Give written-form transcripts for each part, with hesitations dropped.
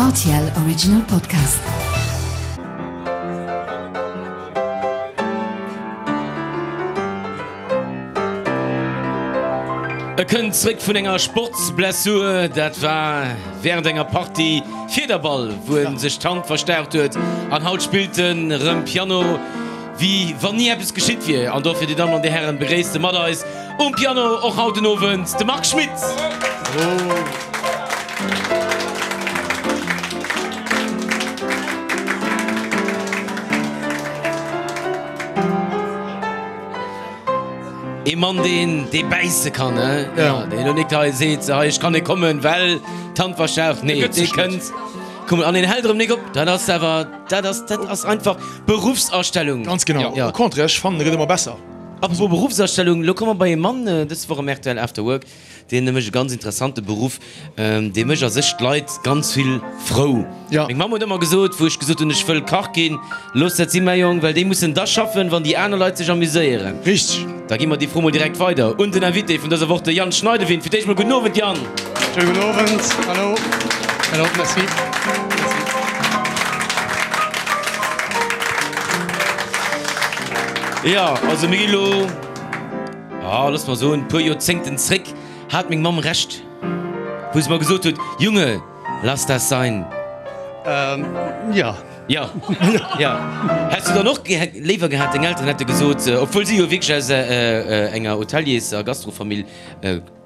Rtl Original Podcast. E kënnt zréck vun enger Sportsblessur. Dat war wärend enger Partie Fiederball, wou en sech d'Hand verstaucht huet. An haut spillt en rëm Piano, wéi wann ni eppes geschitt wier. An dofir, Dir Dammen an Dir Hären, begréisst e mat eis um Piano och haut den Owend de Marc Schmitt. Ee Mann, deen, dee bäisse kann, he? Ja. Deen elo nik hei seet, hei, ech kann net kommen, well d'Hand verstaucht. Nee, dee kënnt kommen an deen hält erëm nik op. Dat ass awer, dat ass, dat ass einfach Beruffsastellung. Ganz genau. Au contraire, ech fannen, e gëtt ëmmer besser. Apropos Beruffsastellung, elo komme mer bei ee Mann dës Woch am rtl After Work, Deen mécht e ganz interessante Beruff, dee mécht a sech d'Leit ganz vill frou. Ja. Meng Mamm huet ëmmer gesot, wou ech gesot hunn, ech wëll Kach ginn, Looss dat sinn, mäi Jong, well déi mussen da schaffen, wann déi aner Leit sech amuséieren. Richteg. Da gi mer déi Fro mol direkt weider un den Invité vun dëser Woch, de Yann Schneidewind. Fir d'éischt mol gudden Owend, Yann. Schéine gudden Owend. Hallo. Hallo, merci. Merci. Jo, also mir gi lo. Ah, looss mer soen, puer Joerzéngten zréck hat meng Mamm Recht, wou se mer gesot huet, Junge, lass das sein. Ähm, ja. Ja, ja. Häss du dann och léiwer gehat, deng Elteren hätte gesot, obwuel si jo wierklech aus enger Hoteliers a Gastrofamill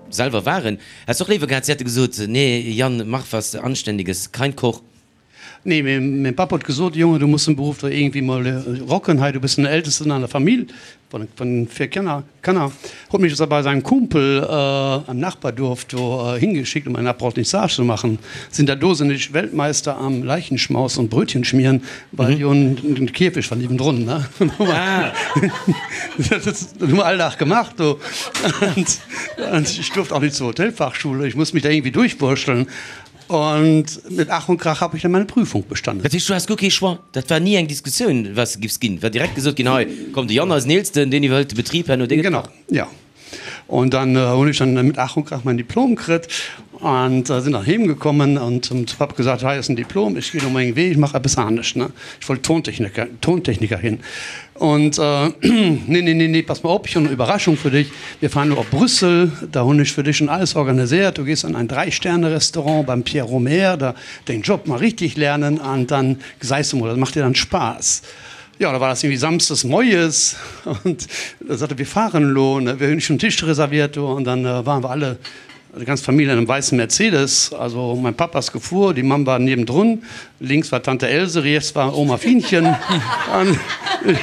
selwer waren, häss du och léiwer gehat, si hätte gesot, Nee, Yann, mach was Anständiges, kein Koch? Nee, mee mäin Papp huet gesot, Jonge, du muss den Beruff do iergendwéi mol rocken hei, du bist den Ältesten an der Famill vun 4 Kanner. Kanner. Huet mech also bei säin Kumpel am Nachbarduerf do hingeschickt, um ein Apprentissage zu machen. Sinn der do sinn ech Weltmeister am Leichenschmaus und Brötchen schmieren, well jo den Kierfecht war niewendrun, ne. Dat hu mer all Dag gemaach do. Und ich durfte auch nicht zur Hotelfachschule, ich musste mich da irgendwie durchwursteln. Und mit Ach und Krach habe ich dann meine Prüfung bestanden. Dat heescht, du haas guer kee Choix, dat war ni eng Diskussioun, wat s de giffs ginn, war direkt gesot ginn, hei komm, de Yann, eisen Eelsten, deen iwwerhëlt de Betrib herno, dee gëtt Genau, ja. Und dann hunn ech dann mit Ach und Krach mein Diplom kritt und sinn dann heem gekommen und hunn zum Papp gesat, hei ass den Diplom, ech ginn elo meng Wee, ech mach eppes anescht, ne. Ech wollt Tontechniker, Tontechniker ginn. Und nee, nee, nee, nee, pass mal op, ich hunn eng Überraschung für dich, Wir fahren elo op Brüssel, da hunn ech fir dech schon alles organiséiert, du gees an ein Drei-Sterne-Restaurant beim Pierre Rohmer, da deng Job mal richtig lernen an dann gesäis du mol, dat macht dir dann Spaass. Jo, da war das irgendwie samsdes moies und da sot e, wir fahren elo, ne, wir hunn schon Tisch reserviert do an dann waren wir alle, déi ganz Famill an einem weißen Mercedes, also mein Papp ass gefuer, déi Mamm war niewendrun, Links war Tante Else, riets war Oma Fienchen. An.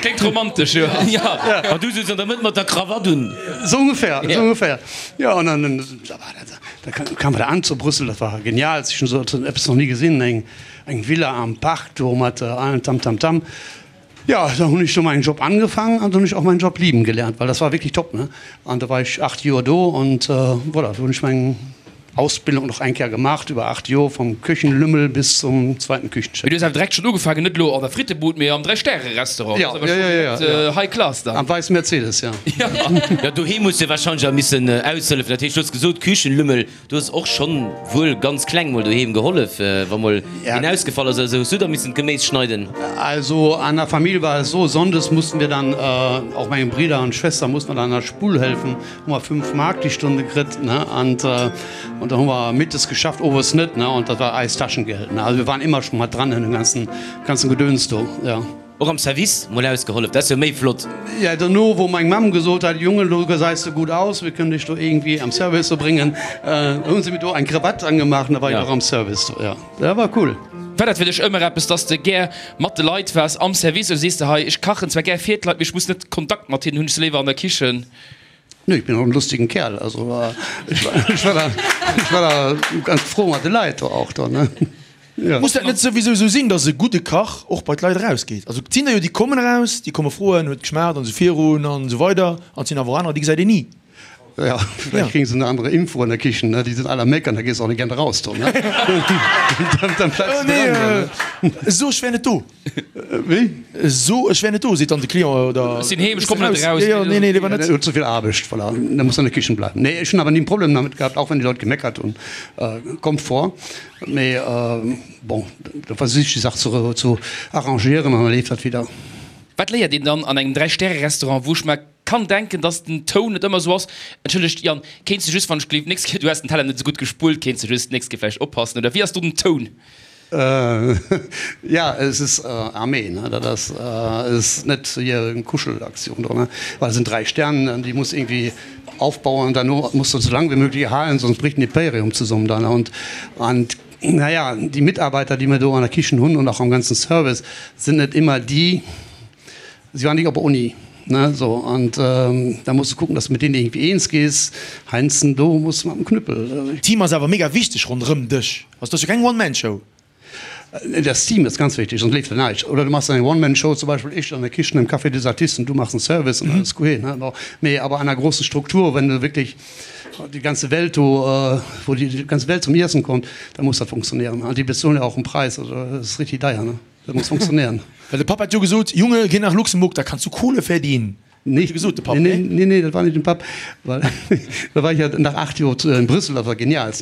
Kléngt romantesch, jo. Ja, an du souz an der Mëtt mat der Krawatt un. Sou ongeféier, sou ongeféier. Jo, an dann, da war dat, da kamen wir da an zu Brüssel, dat war genial, ech hunn sou eppes nach ni gesinn, eng, eng Villa am Park do mat allem Tam Tam Tam. Jo, da hunn ech do mäin Job angefangen an da hunn ech och mäin Job lieben gelernt, well das war wirklich top, ne. An da war ech 8 Joer do und voilà, do hunn ech meng Ausbildung nach eng Kéier gemacht iwwer 8 Joer, vom Küchenlümmel bis zum zweiten Küchenchef. Mee du hues awer direkt schonn ugefaangen, net elo an der Frittebud, mee am Dräi-Stäre-Restaurant. Ja, ja, ja, ja, ja. High class dann. Am weißen Mercedes, ja. Ja, doheem hues de wahrscheinlech awer missen aushëllefen. Dat heescht, du hues gesot, Küchenlümmel. Du hues och schonn wuel ganz kleng mol doheem gehollef, wa mol een ausgefall ass oder sou. Hues du da missen d'Geméis schneiden? Also an der Famill war es so, sonndes mussten wir dann, auch meine Brüder und Schwester mussten wir dann an der Spull helfen, hu mer 5 Mark die Stunde kritt, ne, und und da hu mer mittes geschafft, owes net, ne, und dat war eist Taschengeld, ne. Also wir waren immer schon mat dran an dem ganzen ganzen Gedöns do, ja. Och am Service mol ausgehollef, dat ass jo méi flott. Ja, dono wou meng Mamm gesot hat, Junge, lo gesäis de gutt aus, mir kënnen dech do iergendwéi am Service do bréngen, hu se mir do eng Krawatt angemaach an da war ech och am Service do, ja, dat war cool. War dat fir dech ëmmer eppes, dass de gär mat de Leit waars am Service oder sees de hei, ech kachen zwar gär fir d'Leit, mee ech muss net Kontakt mat hinnen hunn, ech si léiwer an der Kichen? Nö, ich bin och en lustigen Kerl, also ech war da, ech war da ganz frou mat de Leit do och do, ne. Ja. Muss dat net souwisou esou sinn, datt e gudde Kach och bei d'Leit erausgeet? Also et sinn der jo, déi kommen eraus, déi komme froen, huet geschmaacht an esou virun an esou weider, an et sinn awer och anerer, déi gesäit een ni. Ja, vielleicht kriegen sie eine andere Info an der Kichen, ne? Die sind alle am Meckern, da gehst du auch nicht gerne raus, do, ne? Dann, dann bleibst du dran, ne? So, ech wär net do. Wéi? So, ech wär net do, seet dann de Client, oder? Ech sinn heem, ech kommen net eraus. Jo, jo, nee, nee, léiwer net. Huet ze vill Aarbecht, voilà. Da muss an der Kichen bleiwen. Nee, ech hunn awer ni en Problem damit gehabt, auch wenn die Leute gemeckert hunn. Kommt vor. Mee bon, da versich ech déi Sach ze, zu arrangieren an da leeft dat wieder. Wat léiert een dann an engem Dräi-Stäre-Restaurant, wou ech mer kann denken, dass den Toun net ëmmer esou ass? Entschëllegt Yann, kéints de just, wann ech gleef, d'nächst Kéier, du häss den Teller net esou gutt gespullt, kéints de just d'nächst Kéier vläicht oppassen, oder wéi ass do den Toun? Ja, es ist Armee, ne? Dat ass, es ist net hier eng Kuschelaktion do, ne? Well et sinn 3 Sterne an déi muss irgendwie aufbauen an derno muss de sou laang wéi möglich erhalen, sonst bricht den Imperium zusammen dann. Und, und naja, déi Mitarbeiter, déi mir do an der Kichen hunn und auch am ganzen Service, sind net immer déi, Si waren nicht op der Uni, ne, so, und da musst du kucken, dass du mit denen irgendwie eens gehst. Heinzen, do muss mat dem Knüppel. Team ass awer mega wichteg ronderëm dech. Also et ass jo keng One-Man-Show. Das Team ist ganz wichtig, sonst leeft da näischt. Oder du machst eng One-Man-Show, zum Beispiel ich an der Kichen im Café des Artistes und du machst den Service und alles guet, ne. Bon, mee awer an einer großen Struktur, wenn du wirklich die ganze Welt do, wo die ganze Welt zum Iessen kommt, da muss dat funktionieren. An déi bezuelen ja auch en Preis, also dat ass richtig deier, ne. Dat muss funktionéieren. Well de Papp hat jo gesot, Junge, geh nach Luxemburg, da kannst du Kohle verdienen. Nee, Huet e gesot, de Papp, nee, nee? Nee, dat war nicht den Papp, well da war ich ja nach 8 Joer in Brüssel, dat war genial.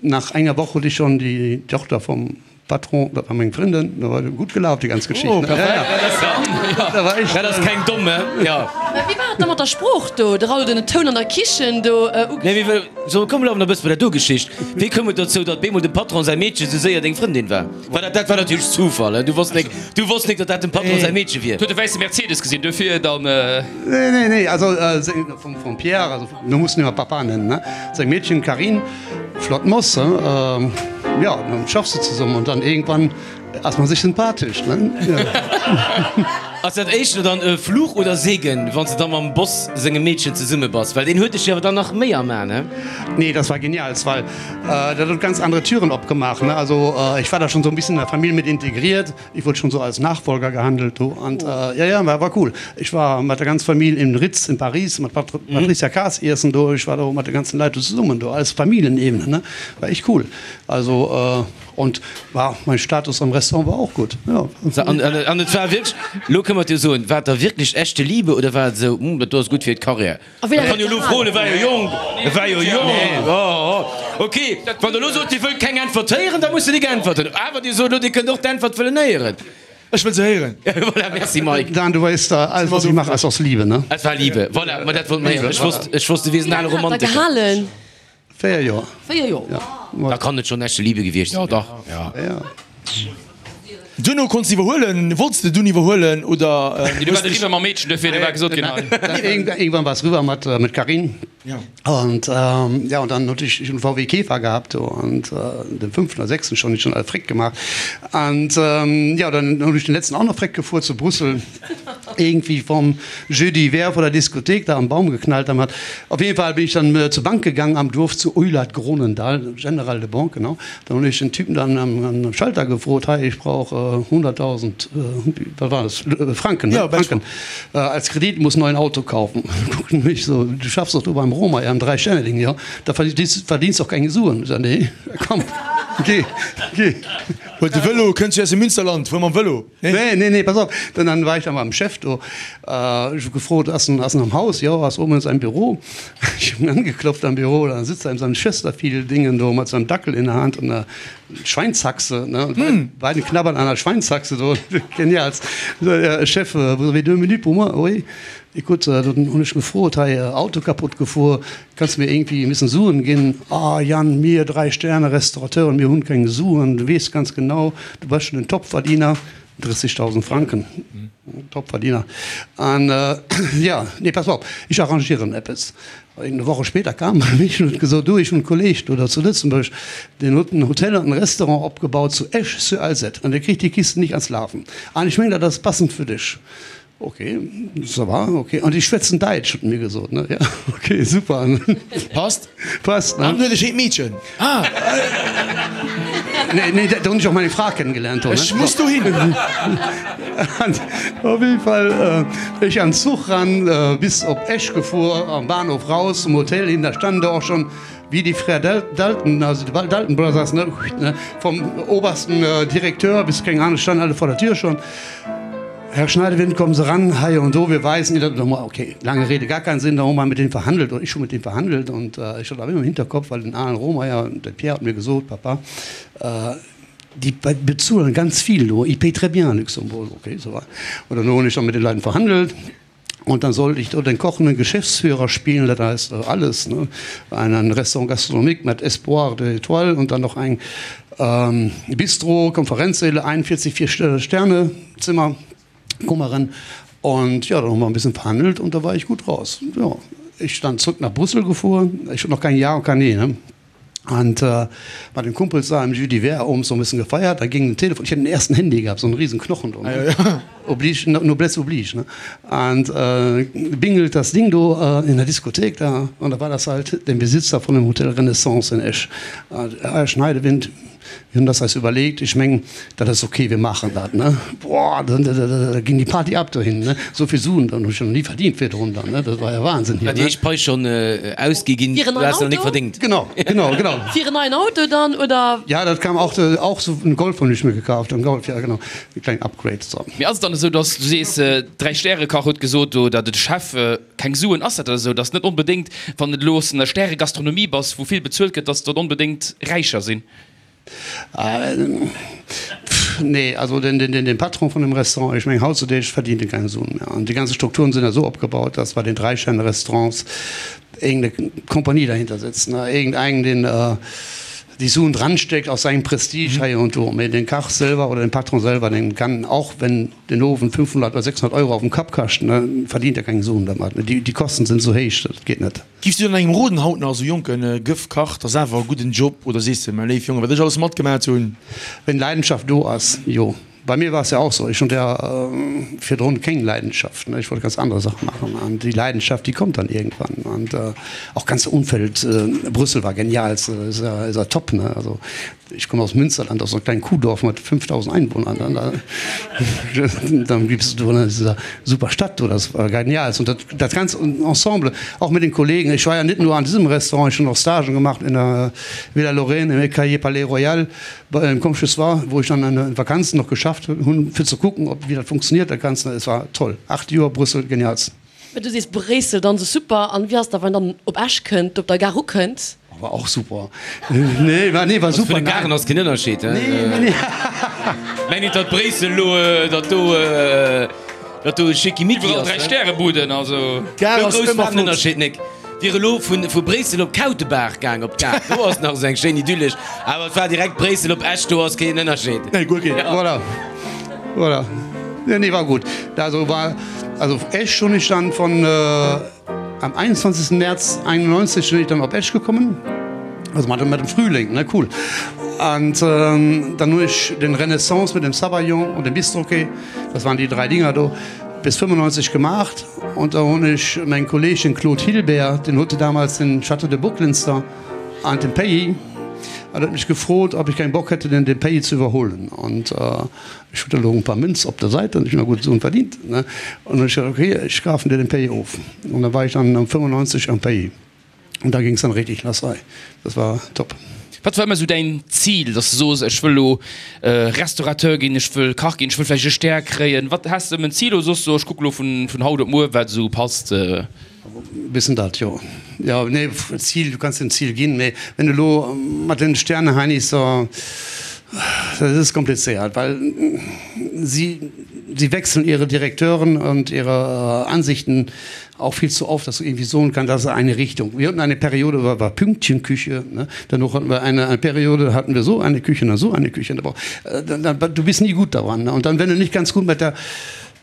Nach enger Woch huet ich schon die Tochter vom Patron, dat war meng Frëndin, da war gut gelaf déi ganz Geschicht. Oh, perfekt. Ja, ja. Da war ich, Dat ass keng domme, ja. Mä wéi war et da mat der Sprooch do? De Raoul, den Toun an der Kichen do ugeschwat. Nee, wéi, so, komm, elo awer nach e bësse bei der do Geschicht. Wéi koum et dozou, datt bemol dem Patron säi Meedche sou séier deng Frëndin war? War dat, dat war natierlech Zufall, du wosst nek, du wosst nek, datt dat dem Patron säi Meedche wier. Huet e wäisse Mercedes gesinn, duerfir dann. Nee, nee, nee, also seng, vum, vum Pierre, also mir mussen ëmmer Papa nennen, ne, seng Meedchen Carine, flott Moss, he, jo, dann schaffs de zesummen und dann irgendwann ass man sech sympathesch, ne, jo. Ass dat éischter dann e Fluch oder Segen, wann s de da mam Boss sengem Meedchen zesumme bass? Well deen huet dech jo awer dann nach méi am A, ne? Nee, das war genial, well dat huet ganz andere Türen opgemaach, ne. Also ich war da schon so ein bisschen in der Famill mit integriert, ich wurde schon so als Nachfolger gehandelt do an ja, ja, war war cool. Ich war mat der ganz Famill im Ritz in Paris mat Patricia Kaas iessen do, ich war do mat de ganzen Leit do zesummen do, alles Famillenebene, ne, war echt cool. Also. Und war mein Status am Restaurant war och gutt, jo. An et war wierklech, elo kënne mer et jo soen, war et da wierklech echte Liebe oder war et esou, hm, dat do ass gutt fir d'Carrière? A wéi laang Kann jo elo froen, e war jo jonk, e war jo jonk. Oh, ok, wann der elo sot, Dir wëllt keng Äntwert héieren, da musst Der nik äntwerten. Awer Dir sot elo, Dir kënnt och d'Äntwert wëllen héieren. Ech wëll se héieren. Voilà, merci Mike. Dan, du weess, alles was ich mache, ist aus Liebe, ne? Et war Liebe, voilà, ma dat wollt mer héieren. Ech wosst, ech wosst, du wiers en ale Wéi laang hat der Romantiker. gehalen? 4 Joer. 4 Joer. Ja. Da kann et schon echte Liebe gewiescht sinn. Ja, dach. Ja. Ja. Duerno konns de iwwerhuelen. Wollts de dunn iwwerhuelen oder? Nee, du war eriwwer mam Meedchen, duerfir du war gesot ginn hei. Irgendwann war es rüber mat mit Carine. Ja. Und ja, und dann huet ech en VW Käfer gehabt do und den fünften oder sechsten schon, schon all Frick gemacht. Und ja, dann hunn ech den letzten auch nach Frick gefuer zu Brüssel. Irgendwie vom Jeudi d'hiver vor der Diskothek da am Baum geknallt haben hat. Auf jeden Fall bin ich dann zur Bank gegangen am Dorf zu Eulert Gronendal, General de Banque, genau. Dann hunn ech den Typen dann am Schalter gefrot, hei ich brauch 100.000, wat war das, Franken, ne? Franken als Kredit, muss neuen Auto kaufen. Guckt en mech so, du schaffst doch do beim Romer am Dreistelling, jo, da verdienst verdienst doch keng Suen. Ich sag, nee, komm, geh, geh. Huel de Vëlo, kënns du aus dem Münsterland, fuer mam Vëlo. Nee, nee, nee, pass op. Dann, dann war ich da beim Chef do. Ech hu gefrot, Ass en, ass en am Haus? Jo, ass oben in seinem Büro. Ech hunn angeklopft am Büro, dann sitzt er in seinem Chesterfield-Dingen do mat seinem Dackel in der Hand und einer Schweinshaxe, ne? Und beide, beide knabbern an der Schweinshaxe do. Genial. So, ja, Chef, vous avez deux minutes pour moi? Oui. Écoute, dann hunn ech gefrot, hei, Auto kaputt gefuer, Kanns de mir irgendwie e missen Suen ginn? Ah Yann, mir Dräi-Sterne-Restaurateuren, mir hunn keng Suen, du weess ganz genau, du bass schon en Topverdiener, 30.000 Franken, Topverdiener. An ja, nee, pass op, ech arrangieren eppes. Eng Woche später kam e mich an huet gesot, du, ech hunn e Kolleg do zu Lëtzebuerg, deen huet en Hotel an en Restaurant opgebaut zu Esch-sur-Alzette an dee kritt déi Kisten nicht ans Lafen. An ech mengen, dat ass passend fir dech. Ok, ça va, ok. An déi schwätzen Däitsch, huet en mir gesot, ne? Ja, ok, super. Passt. Passt, ne? An huet e schéint Meedchen. Ah! Nee, nee, da hunn ech och meng Fra kennengelernt do, ne? Ech muss dohin! An op jeden Fall, ech an Zuch ran, bis op Esch gefuer, am Bahnhof raus, zum Hotel hin, da standen da och schon wéi déi Frères Dalton, also die Dalton Brothers, ne, vom obersten Direkteur bis keng Ahnung, standen alle vor der Tür schon. Herr Schneidewind, kommen Sie ran, hei und do, wir weisen Ihnen dat. Okay, lange Rede, gar keinen Sinn, da hu mer mit deenen verhandelt, oder ich hu mit deenen verhandelt, und ich hat awer ëmmer im Hinterkopf, well den Alain Rohmeyer, de Pierre hat mir gesot, Papa, die bezuelen ganz viel do, ils payent très bien à Luxembourg. Okay, so war. Und dann hunn ech da mit den Leuten verhandelt. Und dann sollte ich do den kochenden Geschäftsführer spielen, dat heißt alles, ne, ein Restaurant gastronomique mat Espoir de Étoile und dann noch ein Bistro, Konferenzsäle, 41 vier Sterne Zimmer, Kummeren. Und ja, dann hu mer en bisschen verhandelt und da war ich gut raus. Ja, ich dann zrück nach Brüssel gefuhr, ich hun noch kein Ja und kein Nee, ne. Und mat den Kumpels da im Jus d'hiver owends noch en bisschen gefeiert, da ging den Telefon, ich hat den ersten Handy gehabt, so en riesen Knochen do, ne, oblige, noblesse oblige, ne, und bingelt das Ding do in der Diskothek da, und da war das halt den Besitzer von dem Hotel Renaissance in Esch, Herr Schneidewind, wir hunn das eis überlegt, ech mengen, dat ass ok, wir machen dat, ne. Boah, da ging die Party ab dohin, ne. Sou vill Suen, dann hu ech jo nach ni verdient virdrun dann, ne, dat war ja Wahnsinn hier, War déi ne. éischt Pai schonn ausgi ginn, Fir en du neien has nach nik Auto? verdéngt. Genau, genau, genau. Fir en neien Auto dann, oder? Ja, dat kam auch, auch sou en Golf hunn ech mir gekaaft, en Golf, ja genau, e klengen Upgrade, so. Mee ass et dann esou, dass du sees, Dräi-Stäre-Kach huet gesot do, oder de Chef, Keng Suen, ass dat da esou, dass net onbedéngt, wann de elo aus der Stäregastronomie bass, wou vill bezuelt gëtt, dass der onbedéngt räicher sinn? Nee, also den Patron vun dem Restaurant, ech mengen hautzudeeg verdient e keng Suen méi. An déi ganze Strukturen sinn esou opgebaut, dass bei den Dräischerne-Restaurants iergendeng Kompanie dahinter sitzt, iergendeng, deen déi Suen dranstéckt aus sengem Prestige hei und do. Mee den Kach selwer oder den Patron selwer, deen kann, och wenn den Owend 500 oder 600 Euro auf dem Kapp kascht, verdient er keng Suen dermat. Déi Kosten sinn esou héich, dat geet net. Giffs du dann engem roden haut nach, esou jonken Gëff Kach, 't ass awer e gudden Job, oder sees de, mäi léif Jongen, wat ech alles matgemat hunn? Wenn Leidenschaft do ass, jo. Bei mir war es ja auch so, ech hunn ja virdrun keng Leidenschaft, ne, ech wollt ganz andere Sachen machen an déi Leidenschaft, déi kommt dann irgendwann an auch ganze Umfeld, Brüssel war genial, ist ja, ist ja top, ne, also ech komme aus Münsterland, aus so einem kleinen Kuhdorf mat 5.000 Einwohnern, dann da, dann gibst du an dieser super Stadt do, das war genial und dat, dat ganze Ensemble, auch mit den Kollegen, ich war ja net nur an diesem Restaurant, ich hunn och Stagen gemacht in der Villa Lorraine, im Ecailler Palais Royal, Bei engem Komsches war, wou ech dann an den Vakanzen noch geschafft hunn, fir ze kucken, ob wéi dat funktioniert dat Ganzt. Es war toll. 8 Joer Brüssel, genialst. Mä du sees Bréissel dann sou super. An wéi ass da wann dann op Esch kënnt, op der Gare ukënnt? War och super. Nee, war, nee, war Also super. vun de Garen ass keen Ënnerscheed, he? Nee, nee, nee. Meng nit, datt Bréissel elo, datt do, datt do Schickimicki Iwwerall ass, 3 ne? Stärebuden, also. D'Gare Sou ass grouss ëmmer war den flott. Ënnerscheed nik. Wier elo vun vu Bréissel op Kautebaach gaang op d'Gare, do ass nach esou eng schéin idyllesch, awer et war direkt Bréissel op Esch, do ass keen Ënnerscheed. Nee, guer keen. Voilà, voilà. Nee, nee, war gut. Also war, also Esch hunn ech dann von am 21. März 91 sinn ech dann op Esch gekommen, also mat dem Frühling, ne, cool. An dann hunn ech den Renaissance mit dem Sabayon und dem Bistroquet, das waren déi 3 Dinger do, bis 95 gemaacht. Und da hunn ech meng Kolleg, den Claude Hilbert, den huet damals den Château de Bocklinster an den Pays, an huet mech gefrot, ob ich keinen Bock hätte, den den Pays zu überholen. Und ech hunn da elo en paar Münz op der Säit, an ech hunn nach gutt Suen verdient, ne. Und dann hunn ech gesot, okay, ech kafen dir den Pays of. Und da war ich dann am 95 am Pays. Und da ging's dann richtig lass hei. Das war top. Wat war ëmmer esou däin Zil, dass de soos, ech wëll elo Restaurateur ginn, ech wëll Kach ginn, ech wëll vläicht e Stär kréien? Wat, has de ëmmer en Zil oder soos de, ech kucke lo vun haut op muer, wat esou passt? Bëssen dat, jo. Jo, nee, Zil, du kanns dir en Zil ginn, mee wenn du elo mat den Sterneheinis da, dat ass komplizéiert, well si, si wechseln ihre Direkteuren und ihre Ansichten Auch viel zu oft, dass du irgendwie soen kann, das ist eine Richtung. Wir hatten eine Periode, war, war Pünktchenküche, ne? Danach hatten wir eine, eine Periode, da hatten wir so eine Küche und dann so eine Küche. Aber, äh, dann, dann, du bist nie gut daran. Ne? Und dann, wenn du nicht ganz gut mit der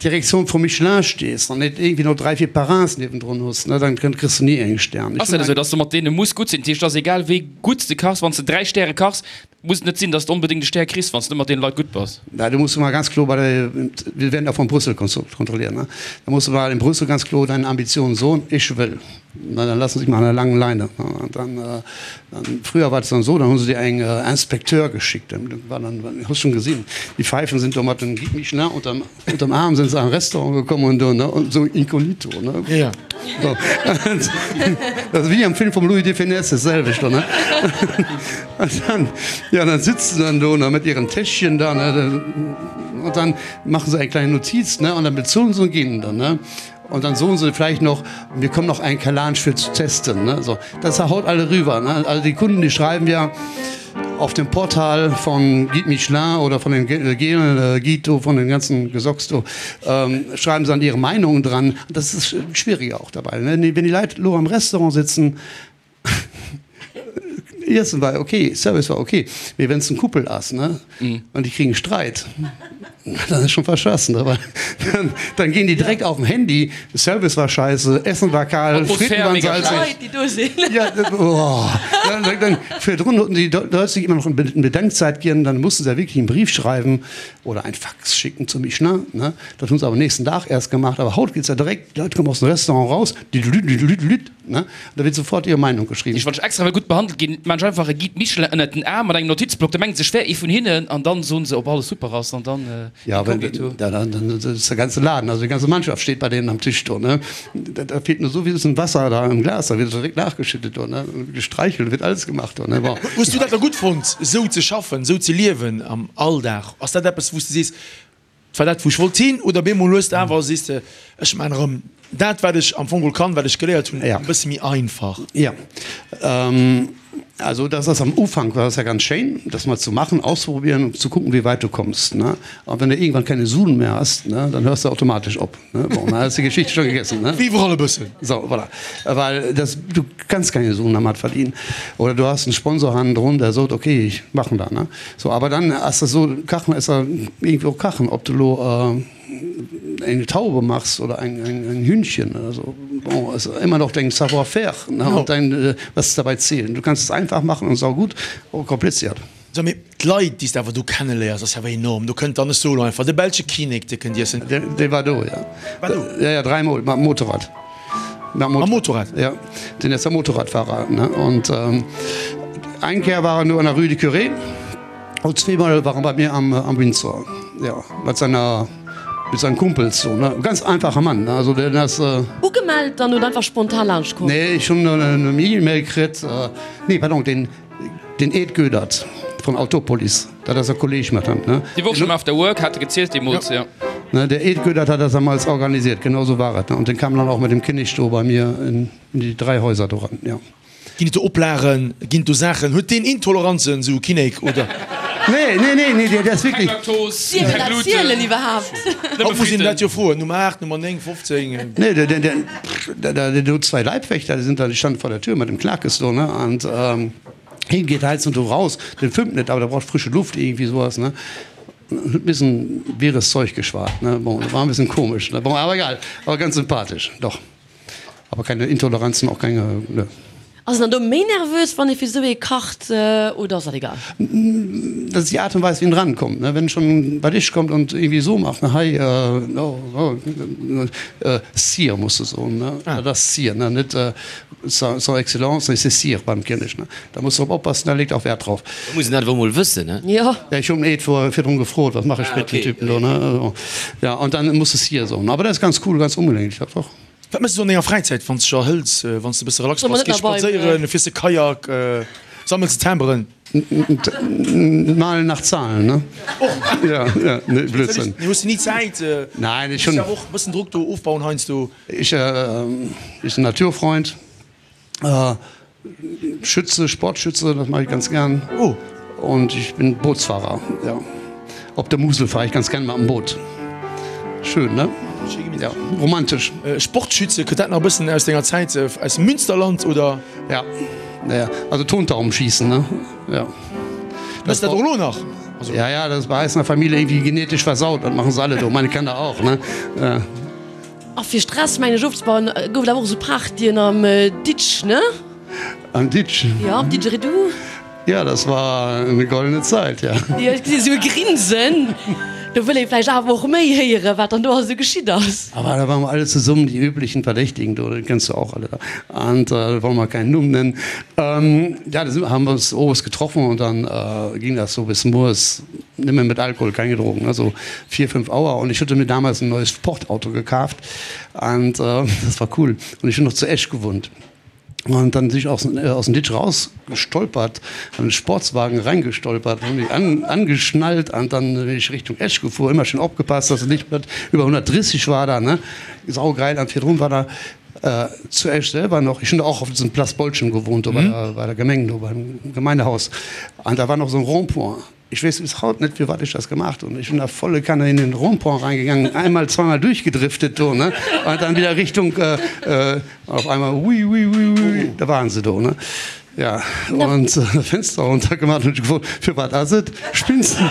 Direktion von Michelin stehst und nicht irgendwie noch drei, vier Parrains nebendran hast, ne? dann kriegst du nie einen Stern. Ass dat esou, dass du mat deene muss gutt sinn? Dat heescht, et ass egal wéi gutt s de kachs, wann s de 3 Stäre kachs. Muss et net sinn, dass de onbedéngt e Stär kriss, wann s de net mat deene Leit gutt bass. Na, du musst mal ganz kloer bei der, wir werden auch von Brüssel kontrolliert, ne? Da musst du mal in Brüssel ganz kloer deine Ambitionen soen, ich will. Na, dann lassen sie dich mal an der langen Leine. Und dann, dann, früher war es dann so, dann hu se dir eng Inspecteur geschickt, dann war dann, hues schon gesinn, die Pfeifen sind do mat dem Guide Michelin unterm, unterm Arm sind se an Restaurant gekomm und do, ne, und so inkognito, ne. Ja. So. Das ist wie am Film vom Louis de Funès, das selwecht, ne. Und dann, ja, dann sitzen sie dann do, ne, mit ihren Täschchen da, ne, und dann machen sie eine kleine Notiz, ne, und dann bezahlen sie und gehen dann, ne. Und dann soen se vläicht noch, mir kommt noch eng Kalansch fir zu testen. Ne? So, das haut alle rüber. Ne? Also die Kunden, die schreiben ja auf dem Portal von Guide Michelin oder von den Gelen äh, Guido, von den ganzen Gesocks, do, ähm, schreiben sie dann ihre Meinungen dran. Das ist schwieriger auch dabei. Ne? Wenn die Leute lo am Restaurant sitzen, Iessen war ok, Service war ok, mee wenn s en Couple ass, ne, an déi kriegen Streit, dann ass schon verschassen, ne, well dann ginn déi direkt auf dem Handy, Service war scheisse, Essen war kal, Fritten waren salzig. Déi do sinn. Ja, oh, dann, dann, virdrun hatten die Leute sich immer noch eine Bedenkzeit ginn, dann mussten se ja wirklich einen Brief schreiben oder ein Fax schicken zu Michelin, ne, dat hunn se awer nächsten Dag erst gemacht, awer haut geht's ja direkt, d'Leit kommen aus dem Restaurant raus, düdelüt, Ne? Da wird sofort ihre Meinung geschrieben. Wann ech extra well gutt behandelt ginn, maan ech einfach e Guide Michelin ënnert den Aarm mat engem Notizblock, da mengen se ech wär ee vun hinnen an dann soen se ob alles super ass an dann Ja, wenn, inkognito. ja, dann, dann ist der ganze Laden, also die ganze Mannschaft steht bei denen am Tisch do, ne? Da, da fehlt nur so wie ein Wasser da im Glas, da wird direkt nachgeschüttet do, ne? Gestreichelt, wird alles gemacht do, ne? Bon. Hues du dat da gutt fonnt, esou ze schaffen, esou ze liewen am Alldag? Ass dat eppes, wou s de sees, Et war dat wou ech wollt hin oder bemol hues de awer sees de ech maan erëm dat wat ech am Fong geholl kann, wat ech geléiert hunn, e bësse méi einfach. Jo, also das ass am Ufank war das ja ganz schéin, das mal zu machen, auszuprobieren und zu gucken, wie weit du kommst, ne. An wenn du irgendwann keine Suen mehr hast, ne, dann hörst du automatisch op, ne. Bon, dann ass die Geschichte schon gegessen, ne. Wéi iwwerall e bëssen. So, voilà. Well das, du kannst keine Suen dermat verdienen. Oder du hast einen Sponsor hannendrun, der sot, okay, ich machen da, ne. So, aber dann ass das so, Kachen ass ja irgendwie och Kachen, ob du lo eng Taube machs oder eng, eng, eng Hühnchen oder so, bon, ass immer noch dein Savoir-faire, ne, und dein, was dabei zählt. Du kannst es einfach machen und saugut oder kompliziert. So, mee d'Leit, déi s de awer do kenneléiers, ass jo awer enorm. Do kënnt dann, ech soe lo einfach, de belsche Kinnek, dee kënnt iessen. Dee war do, ja. War do? Ja, ja, dräimol mam Motorrad. Mam Motorrad? Ja, den ass ja Motorradfahrer, ne? Und eng Kéier war en do an der Rue du Curé und zweemol war en bei mir am am Windsor, ja, mat seiner mit seinen Kumpels so, ne? Ganz einfacher Mann, ne? Also den ass. Ugemellt dann oder einfach spontan laanscht komm? Nee, ech hunn en E-Mail kritt, nee, pardon, den. Den Ed Goedert von Autopolis, dat ass e Kolleg mat him, ne? Déi Woch schon After Work hat e gezielt deemools, jo. Ne, der Ed Goedert hat das damals organisiert, genau sou war et, ne? Und den kam dann auch mit dem Kinnek do bei mir in die 3 Häuser do ran, jo. Ginn et do Oplagen, ginn et do Saachen? Huet deen Intoleranzen, sou e Kinnek, oder? Nee, nee, nee, nee, der ass Keng wierklech. Laktos, Dierf keng een dat Gluten. zielen iwwerhaapt? Haut muss een dat jo froen, Nummer 8, Nummer 9, 15. Nee, der, der, der, der, der huet zwei Leibwächter, déi sind da, déi standen vor der Tür mit dem Klakes do, ne? Und hien geet heiansdo do raus, den fëmmt net, awer der braucht frische Luft, irgendwie sowas, ne? Huet missen wirres Zeug geschwat, ne? Bon, war e bëssen komesch, ne? Bon, awer egal, awer ganz sympathesch, doch. Aber keine Intoleranzen, auch keine, ne. Ass een dann do méi nervös, wann ee fir esou ee kacht, oder ass dat egal? Dat ass déi Aart und Weis, wéi en drankommt, ne? Wenn en schon bei dech kommt und irgendwie esou macht, ne, hei, oh, oh, Sire muss de soen, ne? Dat ass Sire, ne, net Son Excellence, nee, c'est Sire beim Kinnek, ne? Da muss drop oppassen, da leet auch Wert drauf. Da muss een dat awer mol wëssen, ne? Jo. Ja, ech hunn et virdrun gefrot, wat mache ech mit dem Typen do, ne? Ja, und dann muss de Sire soen. Aber dat ass ganz cool, ganz umgänglich, dat och. Wat méchs du an denger Fräizäit, wann s de dech erhëls, wann s de e bësse relax Soll bass? mer net Gees nach bei spadséieren, fiers de Kajak, sammels de Timberen? Malen nach Zahlen, ne? Ja, ja, nee, Blödsinn. Nee, hues de ni Zäit? Nein, ech Muss hunn. jo awer och e bëssen Drock do ofbauen heiansdo. Ech, ech sinn Naturfreund. Schütze, Sportschütze, das mache ich ganz gern. Oh. Und ich bin Bootsfahrer, ja. Op der Musel fahre ich ganz gern mam Boot. Schön, ne? Ja, romantisch. Sportschütze, kënnt dat nach e bëssen aus denger Zäit aus dem Münsterland, oder? Ja, ja, also Tontaubenschießen, ne? Ja. Méchs dat och elo nach? Also. Ja, ja, das bei eis in der Familie irgendwie genetisch versaut, dat machen se alle do, meine Kanner auch, ne? A fir Stress mengen ech ofzebauen gouf et awer och esou Partyen am Ditsch, ne? Am Ditsch? Jo, am Didgeridoo. Ja, das war eine goldene Zeit, ja. Jo, ech gesinn esou e Grinsen. Do wëll ee vläicht awer och méi héieren, wat dann do alles esou geschitt ass. Aber da waren wir alle zusammen, die üblichen Verdächtigen, do, die kennst du auch alle da. Und äh, wollen wir keinen Numm nennen. Ähm, ja, da haben wir uns owes getroffen und dann äh, ging das so bis morgens, nimmer mit Alkohol, keine Drogen, also vier, fünf Auer. Und ich hatte mir damals ein neues Sportauto gekauft und äh, das war cool. Und ich bin noch zu Esch gewohnt. Und dann bin ich aus, äh, aus dem Ditch rausgestolpert, an den Sportswagen reingestolpert, hab mich an, angeschnallt und dann bin ich Richtung Esch gefuhr, immer schön aufgepasst, dass es nicht mit über 130 war da, ne? Saugeil, an virdrun war da äh, zu Esch selber noch, ich bin da auch auf diesem Place Bolschen gewohnt, mhm. bei der, bei der Gemenge, beim Gemeindehaus. Und da war noch so ein Rond-point. Ich weess bis haut net firwat ech das gemacht hunn. Ech hunn da volle Kanne in den Rond-point reingegangen, einmal, zweimal durchgedriftet do, ne, an dann wieder Richtung, äh, auf einmal ui, ui, ui, ui, da waren se do, ne. Ja, und Fenster runter gemacht und gefrot, firwat ass et? Spinns du?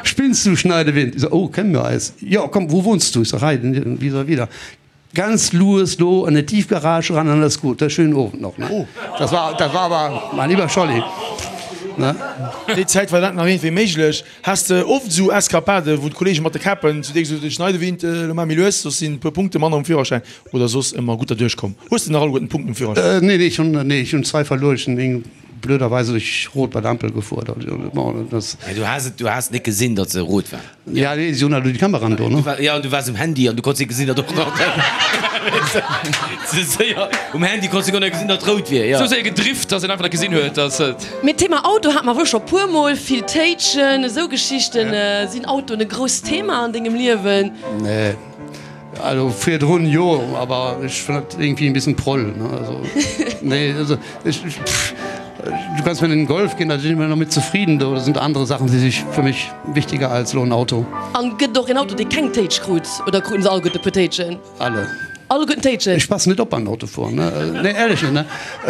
Spinns du, Schneidewind? Ich so, oh, kennen wir eis? Jo, komm, wo wohnst du? Ich so, hei, vis-à-vis da. Ganz lues do an der Tiefgarage ran an alles gut. Schönen Owend noch ne. Oh. Das war, das war aber mein lieber Scholli. Ne? Déi Zäit war dat nach iergendwéi méiglech. Has de oft esou Eskapaden, wou d'Kollege mat de Käppen zu dir gesot hunn, Schneidewind, elo maach méi lues, soss sinn e puer Punkte manner um Führerschäin, oder soss ëmmer gutt derduerch komm? Hues de nach alleguerten d'Punkten um Führerschäin? Nee, nee, ech hunn, nee, ech hunn zwei verluer. Ech hunn eng blöderweise duerch Rot bei der Ampel gefuer. Bon, das. Mä du has et, du has net gesinn, datt se rot war. Ja, nee, si hunn halt elo déi Kameraen do, ne? Ja, an du waars um Handy an du konns net gesinn, datt och nach ze séier um Handy konns du guer net gesinn, datt rout wier, ja. Sou séier gedrift, datt een einfach net gesinn huet, datt et. Mee d'Thema Auto hate mer wuel scho puer mol, vill Téitschen, esou Geschichten. Sinn Autoen e grousst Thema an dengem Liewen? Nee, also virdrun jo, awer ech fannen dat irgendwie en bisschen proll, ne, also nee, also ech, pff. Du kannst mir in den Golf ginn, da sinn ech mir nach mit zufrieden. Do sind andere Sachen, déi sich für mich wichtiger als lo en Auto. An gëtt et och een Auto, dee keng Téitsch krut? Oder kruten se alleguerten e puer Téitschen? Alle. Alleguerten Téitschen? Ech passen net op beim Autofueren, ne. Nee, ehrlech net, ne.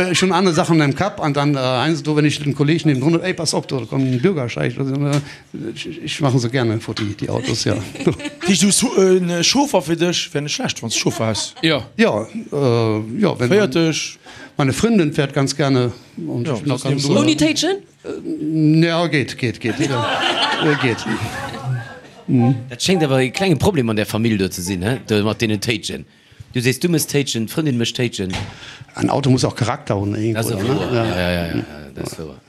Ech hunn aner Sachen am Kapp an dann heiansdo, wenn ich den Kolleg niewendrun hunn, Ey, pass op, do kommt en Bürgersteig. Ech maachen se gerne futti, déi Autos, jo. Dat heescht, du hues e Chauffer fir dech? Wär net schlecht, wann s de Chauffer häss. Jo. Jo, jo, wenn. Féiert dech. Meine Frëndin fährt ganz gerne und ich bin auch ganz. Ouni Téitschen? Ja, geet, geet, geet, geet. Dat schéngt awer e klenge Problem an där Famill do ze sinn, he, do mat deenen Téitschen. Du sees, du mëss Téitschen, d'Frëndin mécht Téitschen. En Auto muss auch Charakter hunn irgendwo, ne? Dat ass wouer, ja, ja, ja, dat ass wouer.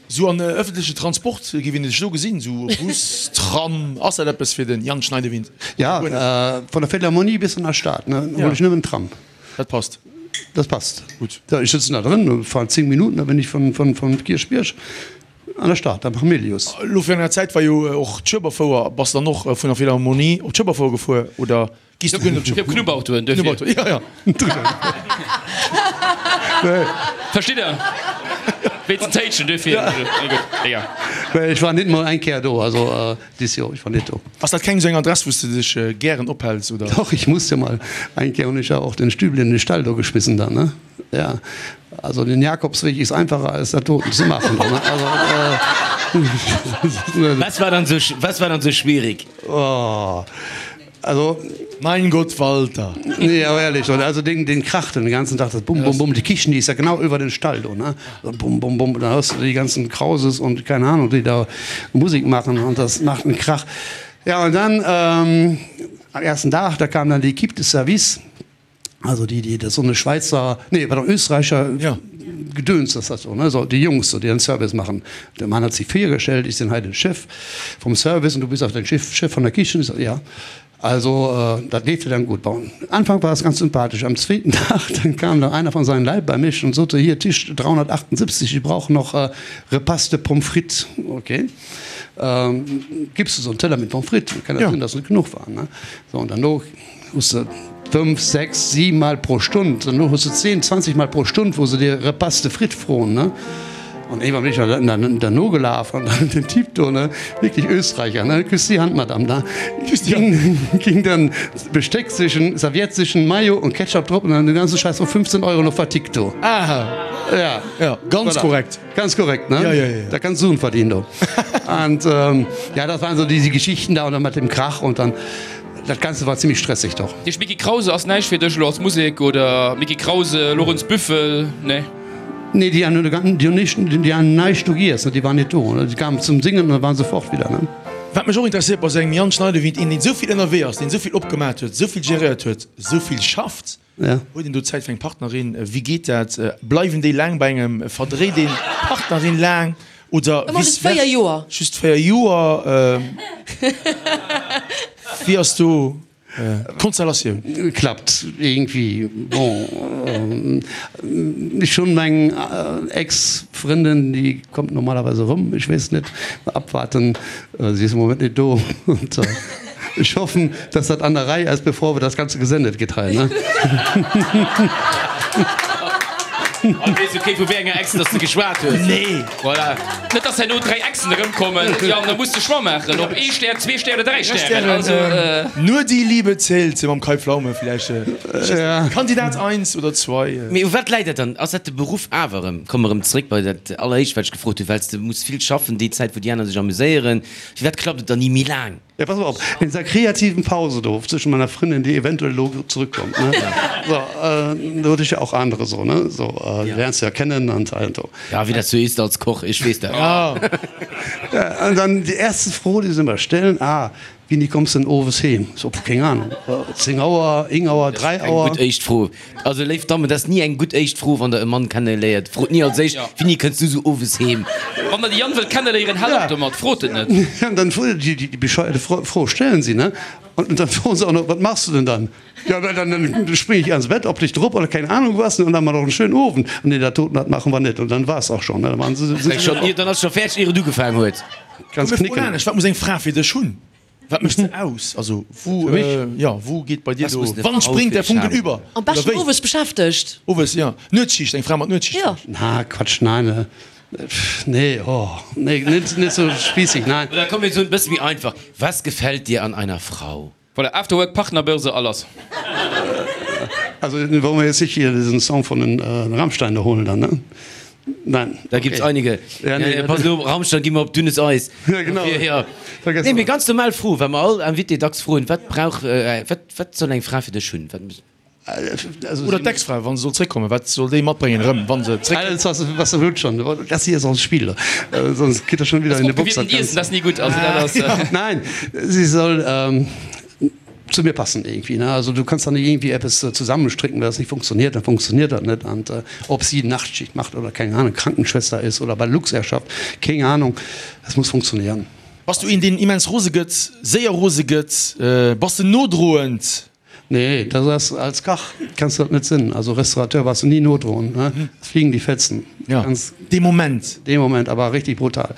Sou an ëffentlechen Transport, géif een dech do gesinn, sou Bus, Tram, ass dat eppes fir den Jan Schneidewind? Ja, vun der Philharmonie bis an der Stad, ne, huel ech nëmmen Tram. Dat passt. Dat passt. Gutt. Ech sëtzen da drën, fahren 10 Minuten, da bin ich vun, vun, vun Kierchbierg an der Stad, am Hamilius. Elo virun enger Zäit war jo och d'Schueberfouer. Bass de dann och vun der Philharmonie op d'Schueberfouer gefuer, oder? Gehst du gön op Op Knubbautoen duerfir. Knubbauto, ja, ja. Versteet der? Wéinst den Téitschen duerfir. Nee, gutt, egal. Nee, ech war net mol eng Kéier do, also dis Joer, ech war net do. Ass dat keng esou eng Adress, wou s de dech gären ophäls, oder? Doch, ich muss jo mal eng Kéier hunn ech ja och den Stübli an den Stall do geschmissen dann, ne? Ja, also den Jakobsweg ist einfacher als dat doten ze maachen, ne? Also, Was war dann sou, was war dann sou schwierig? Oh. Also. Mein Gott, Walter! Nee, awer ehrlech, oder? Also deen, deen kracht den ganzen Tag, das bum, bum, bum. Die Kichen, die ist ja genau über den Stall do, ne? So bum, bum, bum. Da hörst du die ganzen Krauses und keine Ahnung, die da Musik machen und das macht einen Krach. Ja, und dann, ähm, am ersten Tag, da kam dann die Equipe de Service. Also déi, déi, dat ass so eine Schwäizer, nee, pardon, Österreicher ja. Gedöns ass dat so, ne? So, déi Jungs, so, déi den Service machen. Der Mann hat sich virgestellt, ich sinn hei den Chef vom Service und du bist auch den Chef, Chef von der Kichen. Ich so, ja. Also, äh, dat leeft jo dann gut. Bon, Anfang war es ganz sympathisch. Am zweeten Tag, dann kam da einer von seinen Leit bei mich und sot, hier, Tisch 378, ich brauche noch äh, Repaste Pommes frites. Okay. Ähm, gibst du so einen Teller mit Pommes frites? Kann ja sinn, dass net genuch waren, ne? So, und dann no hues de 5, 6, 7 Mal pro Stund, dann hues de 10, 20 Mal pro Stund, wou se dir Repas de frites froen, ne? An iergendwann bin ech dann dann derno gelaf an dann den Typ do, ne, wirklich Österreicher, ne, küss die Hand, Madame, da ging, ging dann Besteck sichen, Serviette sichen, Mayo und Ketchup drop und dann den ganzen Scheiß für 15 Euro noch vertickt do. Aha. Ja. Ja, ganz Voilà. korrekt. Ganz korrekt, ne? Ja, ja, ja. Da kannst du Suen verdienen, do. Und ähm, ja, das waren so diese Geschichten da und dann mit dem Krach und dann dat Ganze war ziemlich stressig doch. Deech Micky Krause ass näischt fir dech elo als Musek oder Micky Krause, Lorenz Büffel, nee? Nee, déi hunn déi hunn nicht, déi han näischt do giess, ne, déi waren net do, ne, déi kamen zum Singen an da waren se fort wieder, ne. Wat mech och interesséiert bei esou engem Jan Schneidewind, een deen esou vill ënnerwee ass, deen esou vill opgemat huet, esou vill geréiert huet, esou vill schafft, Ja. huet een do Zäit fir eng Partnerin? Wéi geet dat? Bleiwen déi laang bei engem? Verdréit een d'Partnerin laang oder Ëmmer vice just 4 versa? Joer. Just 4 Joer? Wéi ass do D'Konstellatioun. Klappt irgendwie. Bon, ech hunn meng Ex-Frëndin, déi kommt normalerweise erëm, ech weess net, abwarten, si ass am Moment net do und ech hoffen, dass dat an der Rei ass, bevor wir das Ganze gesendet gëtt hei, ne? An weess jo kee vu wéi enger Ex dass de geschwat hues. Nee. Voilà. Net dass herno 3 Exen erëmkommen, Yann, da muss de Choix maachen, ob ee Stär, zwee Stär oder 3 Stären. Also. Nur die Liebe zählt mam Kai Pflaume villäicht. Kandidat eins oder zwei. Mee u wat läit dat dann? Ass dat de Beruff awer erëm? Komme mer erëm zréck bei dat alleréischt wat ech gefrot hunn, well s de muss vill schaffen déi Zäit wou déi aner sech amuséieren. Firwat klappt et dann ni méi laang? Ja, pass op, in dieser kreativen Pause do zwischen meiner Fründin, die eventuell elo zurückkommt, ne, so, äh, do huet ech ja och andere so, ne, so, äh, ja. lernst du ja kennen und all so. Ja, wéi dat sou ist als Koch, ech weess dat. Ja. Ja, und dann die erste Fro, die se immer stellen, ah, wéini kommst du denn owes heem? So, pff, keng Ahnung, 10 Auer, ing Auer, 3 Eng Auer. gutt éischt Fro. Also léif Dammen, dat ass ni eng gutt éischt Fro, wann der e Mann kenneléiert. Frot ni als éischt, Wéini kënns du sou owes heem? Wann der de Yann wëllt kenneléieren, haalt op domat, frot et net. Ja, und dann déi, déi bescheuerte Fro stellen sie, ne? Und dann froen se auch noch, Was machst du denn dann? Ja, dann, dann spring ich ans Bett, op dich drop oder keine Ahnung was, ne? Und dann haben wir noch einen schönen Owend. Und nee, dat doten, dat machen wir net. Und dann war's auch schon, ne? Dann waren se, sind se Schon, dann ass scho fäerdeg, ier et ugefaangen huet. Ganz Komm, mir froen knicken. anescht, Wat muss eng Fra fir dech hunn? Wat mécht se aus? Also wou, Fir mech? jo, wou geet bei dir Was do, muss eine wann Frau springt fir der dech Funken haben? über? Am Oder beschten wéi? owes beschäftegt. Owes, jo. Nuetsschicht, eng Fra mat Nuetsschicht Jo. vläicht? Na, Quatsch, nein, pff, nee, oh, nee, net, net sou spießig, nein. Oder komm, mir soen e bësse méi einfach, Was gefällt dir an einer Frau? Voilà, Afterwork, Partnerbörse, a lass. Also wollen wir jetzt nicht hier diesen Song von den Rammstein da holen dann, ne? Nein. Da gibt's einige. Ja, nee. Pass op, Rammstein gi mer op dünnes Eis. Ja, genau. Dofir, ja. Vergess Nee, mee dat. ganz normal Fro, well mer all Invité dacks froen, Wat brauch, wat, wat soll eng Fra fir dech hunn? Wat muss. Also, Oder d'Ex-Fra, wa se soll zréckkommen, wat soll déi matbréngen erëm, wa se zréckkënnt? Alles, was, was der huet schon. Das hier ist auch ein Spiel. Sonst geht er schon wieder in die Box. Opgewiermten Iessen, dat ass ni gutt. Also dat ass. Nein, sie soll ähm, zu mir passen irgendwie. Ne? Also du kannst da nicht irgendwie etwas zusammenstricken, wenn das nicht funktioniert, dann funktioniert das nicht. Und äh, ob sie Nachtschicht macht oder keine Ahnung, Krankenschwester ist oder bei Luxair schafft, keine Ahnung, das muss funktionieren. Bass du een, deen immens rose gëtt, séier rose gëtt? Bass de nodroend? Nee, dat ass als Kach kanns du dat net sinn. Also Restaurateur bass du ni nodroen, ne? Es fliegen die Fetzen. Ja, Ganz dee Moment. Dee Moment, awer richtig brutal.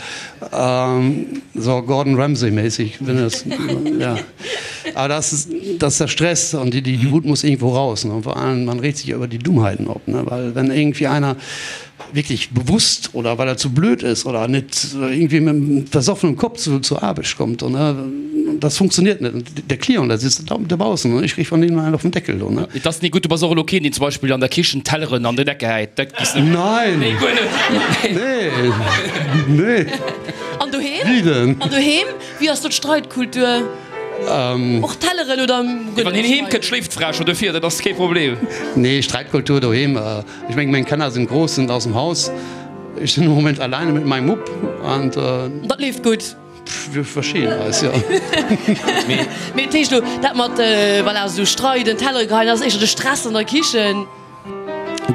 So Gordon Ramsay mäßig, wenn es, ja. Aber das ist, das ist der Stress und die, die Wut muss irgendwo raus, ne? Und vor allem, man regt sich ja über die Dummheiten op, ne? Weil wenn irgendwie einer wirklich bewusst oder weil er zu blöd ist oder net irgendwie mit dem versoffenen Kopf zu, zur Aarbecht kommt und, ne, das funktioniert net. Und der Client, der sitzt da draußen und ich krieg von dem einen auf den Deckel do, ne. Et ass ni gutt, du bass och elo keen, deen zum Beispill an der Kichen Telleren an den Eck gehäit. Dat giss net. Nein! Nee, guer net. Nee, nee. An doheem? Wie denn? An doheem, wéi ass do d'Streitkultur? Och Telleren oder guer Wann net hien heem streiden? kënnt, schléift d'Fra scho dofir, dat ass kee Problem. Nee, Streitkultur doheem, Ech mengen, meng Kanner sinn grouss, sind aus dem Haus. Ech sinn am Moment alleine mit meinem Mupp an. Dat leeft gutt. Wir verstehen eis, jo. Mee dat heescht elo, dat mat, voilà, esou streiden, Tellere geheien, dat ass éischter de Stress an der Kichen?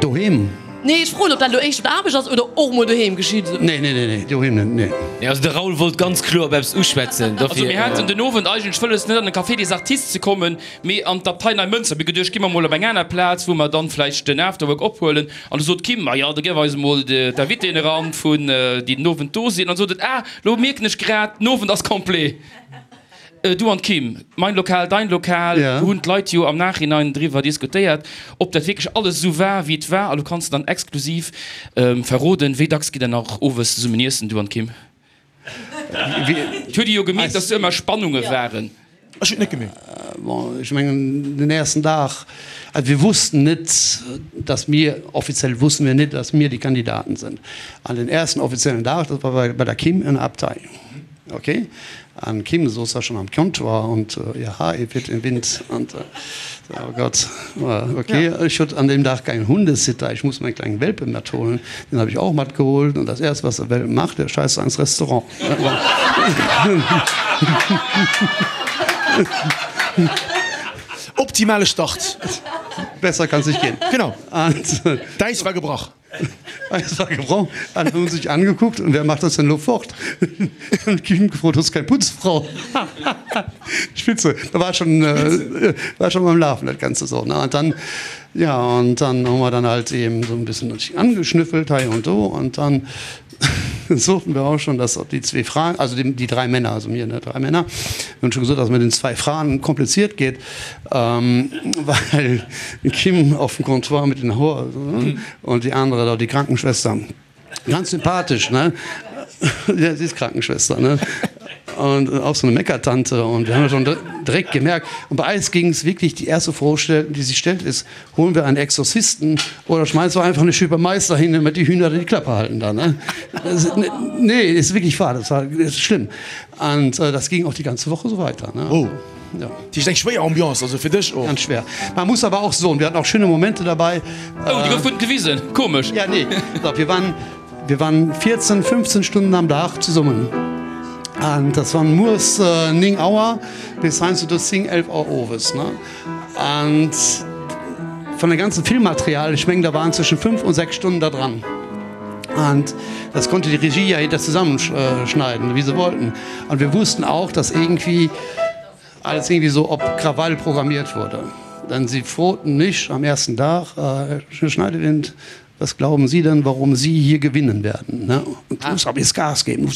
Doheem? Nee, ech froen, ob dat elo éischter op der Aarbecht ass oder och mol doheem geschitt. Nee, nee, nee, nee, doheem net, nee. Nee, also de Raoul wollt ganz kloer op eppes uschwätzen, Also dofir. mir haten den Owend eigentlech wëlles net an de Café des Artistes ze kommen, Mee an d'Abtei Neimënster, mir geduecht, gi mer mol op eng aner Plaz, wou mer dann vläicht den Afterwork ophuelen. An du sot d'Kim, Ma jo, da gëff eis emol d'Invitéen eran, vun déi den Owend do sinn. An sot et, Ah, lo mierken ech grad, den Owend ass complet. Du an d'Kim, mein Lokal, dein Lokal, do hunn d'Leit jo am Nachhinein driwwer diskutéiert, ob dat wierklech alles esou war, wéi et war. A lo kanns de dann exklusiv verroden, wéi dacks gitt der nach owes zesummen iessen, du an d'Kim? Et huet ee jo gemierkt, dass do ëmmer Spannunge waren. Ech hunn et net gemierkt. Bon, ech mengen, den ersten Dag, also wir wussten net, dass mir, offiziell wussten wir net, dass mir die Kandidaten sind. An den ersten offiziellen Dag, das war bei der Kim in der Abtei. Okay. An Kim souz da schon am Comptoir und ihr Haar weht im Wind und oh Gott, okay. Ech hutt an deem Dag keinen Hundesitter, ich muss meinen kleinen Welpe mat holen. Den hab ich auch mat geholt und das erste was der Welpe macht, der scheißt ans Restaurant. Optimale Start. Besser kann's nicht gehen. Genau. D'Äis war gebrach. Eis war gebrochen, alle hunn sech angeguckt und wer macht das denn lo fort? Hunn d'Kim gefrot, hues keng Putzfrau? Spitze, da war schon war schon am Lafen dat Ganze so ne und dann ja und dann hu mer dann halt eben so en bëssen angeschnüffelt hei und do und dann soten wir auch schon, dass déi zwee Fraen, also déi dräi Männer, also mir ne dräi Männer, hunn schon gesot, dass et mit den zwei Fraen kompliziert geet. Well d'Kim auf dem Comptoir mit den Hoer und die andere da, die Krankenschwester, ganz sympathisch, ne? Ja, sie ist Krankenschwester, ne? Und auch so eine Meckertante und wir haben schon direkt gemerkt, und bei eis ging es wirklich, die erste Frage, die sich stellt, ist, holen wir einen Exorzisten oder schmeißen wir einfach eine Schüppe Mais dahin, damit die Hühner die Klappe halten da, ne? Das, nee, ist wirklich wahr, das war das ist schlimm. Und äh, das ging auch die ganze Woche so weiter, ne? Oh. Ja. Dat ass eng schwéier Ambiance, also fir dech och. Ganz schwer. Man muss aber auch soen, wir hatten auch schöne Momente dabei. Oh, déi gouf gutt gewisen. Komesch. Ja, nee. Doch, wir waren, wir waren 14, 15 Stunden am Dag zesummen. An das waren muers 9 Auer bis heiansdo do 10, 11 Auer owes, ne? An vun dem ganzen Filmmaterial, ech mengen, da waren zwëschen 5 und 6 Stunden da dran. An das konnte die Regie ja hinter zusammenschneiden, wie sie wollten. Und wir wussten auch, dass irgendwie alles irgendwie so op Krawall programmiert wurde. Denn sie froten mich am ersten Dag, Herr Schneidewind, was glauben Sie denn, warum Sie hier gewinnen werden? Ne? Und du musst aber jetzt Gas geben.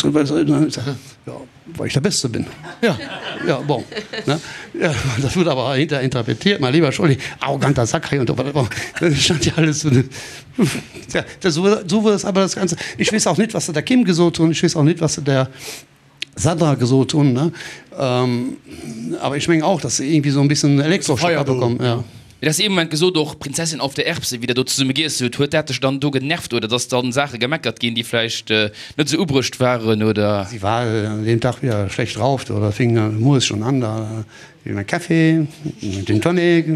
Ja, weil ich der Beste bin. Ja. Ja, bon. Ne? Ja, das wurde aber hinterher interpretiert, mein lieber Scholli, arroganter Sack und so weiter. Das stand ja alles so. Ja, das, so, so wurde das aber das Ganze. Ich weiß auch nicht, was der Kim gesot hunn, ich weiß auch nicht, was der Sandra gesot hunn, ne? Ähm, aber ich mengen auch, dass se irgendwie so ein bisschen Elektroschock bekommen, ja. Mee du has ee Moment gesot, och Prinzessin auf der Erbse, wéi der do zesumme giess hutt, huet dat dech dann do genervt oder dass dann Saache gemeckert ginn, déi vläicht net esou ubruecht waren oder? Sie war an deem Tag wieder schlecht drauf, oder fing mueres schon an da wéi mein Café, mein Gin Tonic,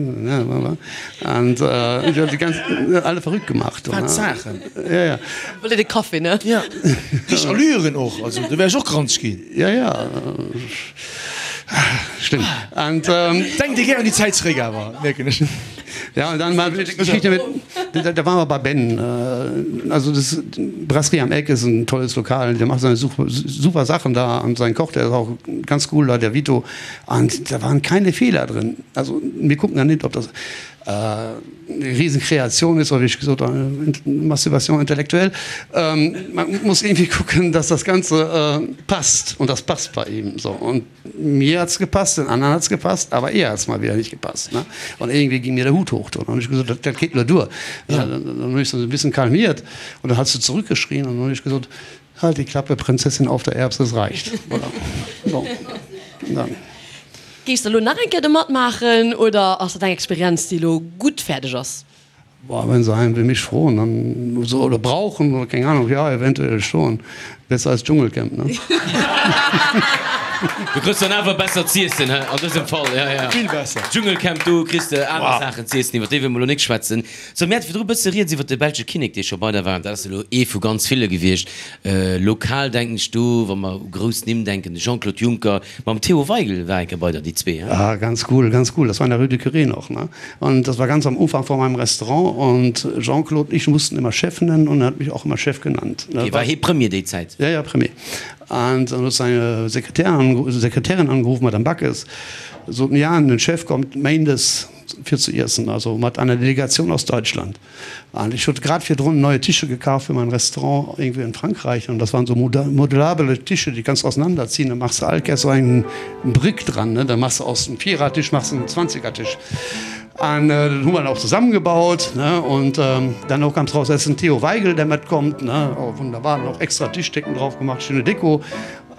an sie hat die ganz alle verrückt gemacht. Wat Saachen! Ja, ja. Wollt Dir de Café, ne? Ja. Richteg Allüren och, also do wär ech och granzeg ginn. Ja, ja. Schlimm. Und, ähm, Denkt dir gär un déi Zäit zeréck awer, mierken ech. Ja, und dann mal die Geschichte mit, da, da waren wir bei Ben. Äh, also das Brasserie am Eck ist ein tolles Lokal, der macht seine super, super Sachen da und sein Koch, der ist auch ganz cool da, der Vito. Und da waren keine Fehler drin. Also wir gucken ja nicht, ob das äh, Riesenkreation ist, oder wie ich gesagt habe, Masturbation intellektuell. Ähm, man muss irgendwie gucken, dass das Ganze äh, passt und das passt bei ihm so. Und mir hat's gepasst, den anderen hat's gepasst, aber ihr hat's mal wieder nicht gepasst. Ne? Und irgendwie ging mir der Hut hoch. Und dann hab ich gesagt, das, das geht nur durch. Ja. Dann, dann, dann hab ich so ein bisschen kalmiert und dann hat sie zurückgeschrien und dann hab ich gesagt, halt die Klappe, Prinzessin auf der Erbse, es reicht. Voilà. So. Dann. Géifs de elo nach eng Kéier do matmaachen oder ass dat eng Experienz, déi elo gutt fäerdeg ass? Boah, wenn se einen wie mich froen dann so oder brauchen oder keng Ahnung, ja eventuell schon. Besser als Dschungelcamp, ne? Du kriss dann awer besser z'iessen, he, an dësem Fall, ja, ja. Vill besser. Dschungelcamp, do kriss de aner Saachen z'iessen, iwwer déi wëlle mer elo nik schwätzen. Sou, mir hate virdru e bësse rieds iwwer de belsche Kinnek, dee scho bei der war. Dat ass elo ee vu ganz ville gewiescht. Lokal denken ech do, wa mer u grouss Nimm denken, de Jean-Claude Juncker mam Theo Waigel war eng Kéier bei der, déi zwee, he? Ah, ganz cool, ganz cool. Das war in der Rue du Curé noch, ne? Und das war ganz am Ufank vor meinem Restaurant und Jean-Claude und ich mussten immer Chef nennen und er hat mich auch immer Chef genannt. Okay, war hee Premier déi Zäit? Ja, ja, Premier. Und dann huet seine Sekretärin angerufen, Madame Backes, soten, ja, den Chef kommt méindes fir ze iessen, also mat einer Delegation aus Deutschland. An ech huet grad virdrun neue Tische gekaf fir mein Restaurant irgendwie in Frankreich an das waren so modulabele Tische, déi kanns du auseinanderziehen, da machs de all Kéiers sou eng Brick dran, ne, da machs de aus dem Vierertisch machs de en Zwanzigertisch. An den hu mer dann och zesammengebaut, ne, und dann och ganz raus, dass den Theo Waigel, der matkommt, ne, oh wunderbar, dann och extra Tischdecken drauf gemacht, schöne Deko.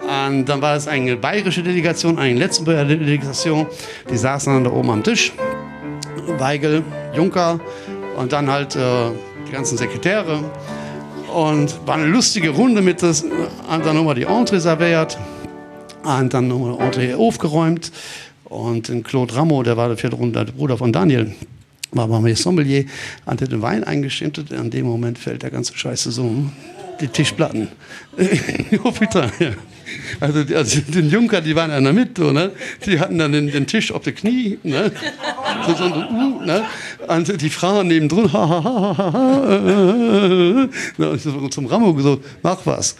An dann war es eng bayresche Delegation, eng Lëtzebuerger Delegation, déi saassen dann da oben am Tisch, Waigel, Juncker und dann halt die ganzen Sekretäre. Und war eine lustige Runde mit des, an dann hu mer déi Entrée servéiert. An dann hu mer Entrée ofgeräumt und den Claude Rammo, der war virdrun de Bruder von Daniel, war bei mir Sommelier an huet den Wein eingeschenkt. An deem Moment fällt der ganze Scheiß zesummen, die Tischplatten. Oh putain, ja. Also, also den Juncker, die waren an der Mitte, do, ne? Die hatten dann den, den Tisch op de Knie, ne? So, so, uh, ne? An die Frauen nebendrun, ha, ha, ha, ha, ha, äh, äh, äh, zum Rammo gesot, mach was.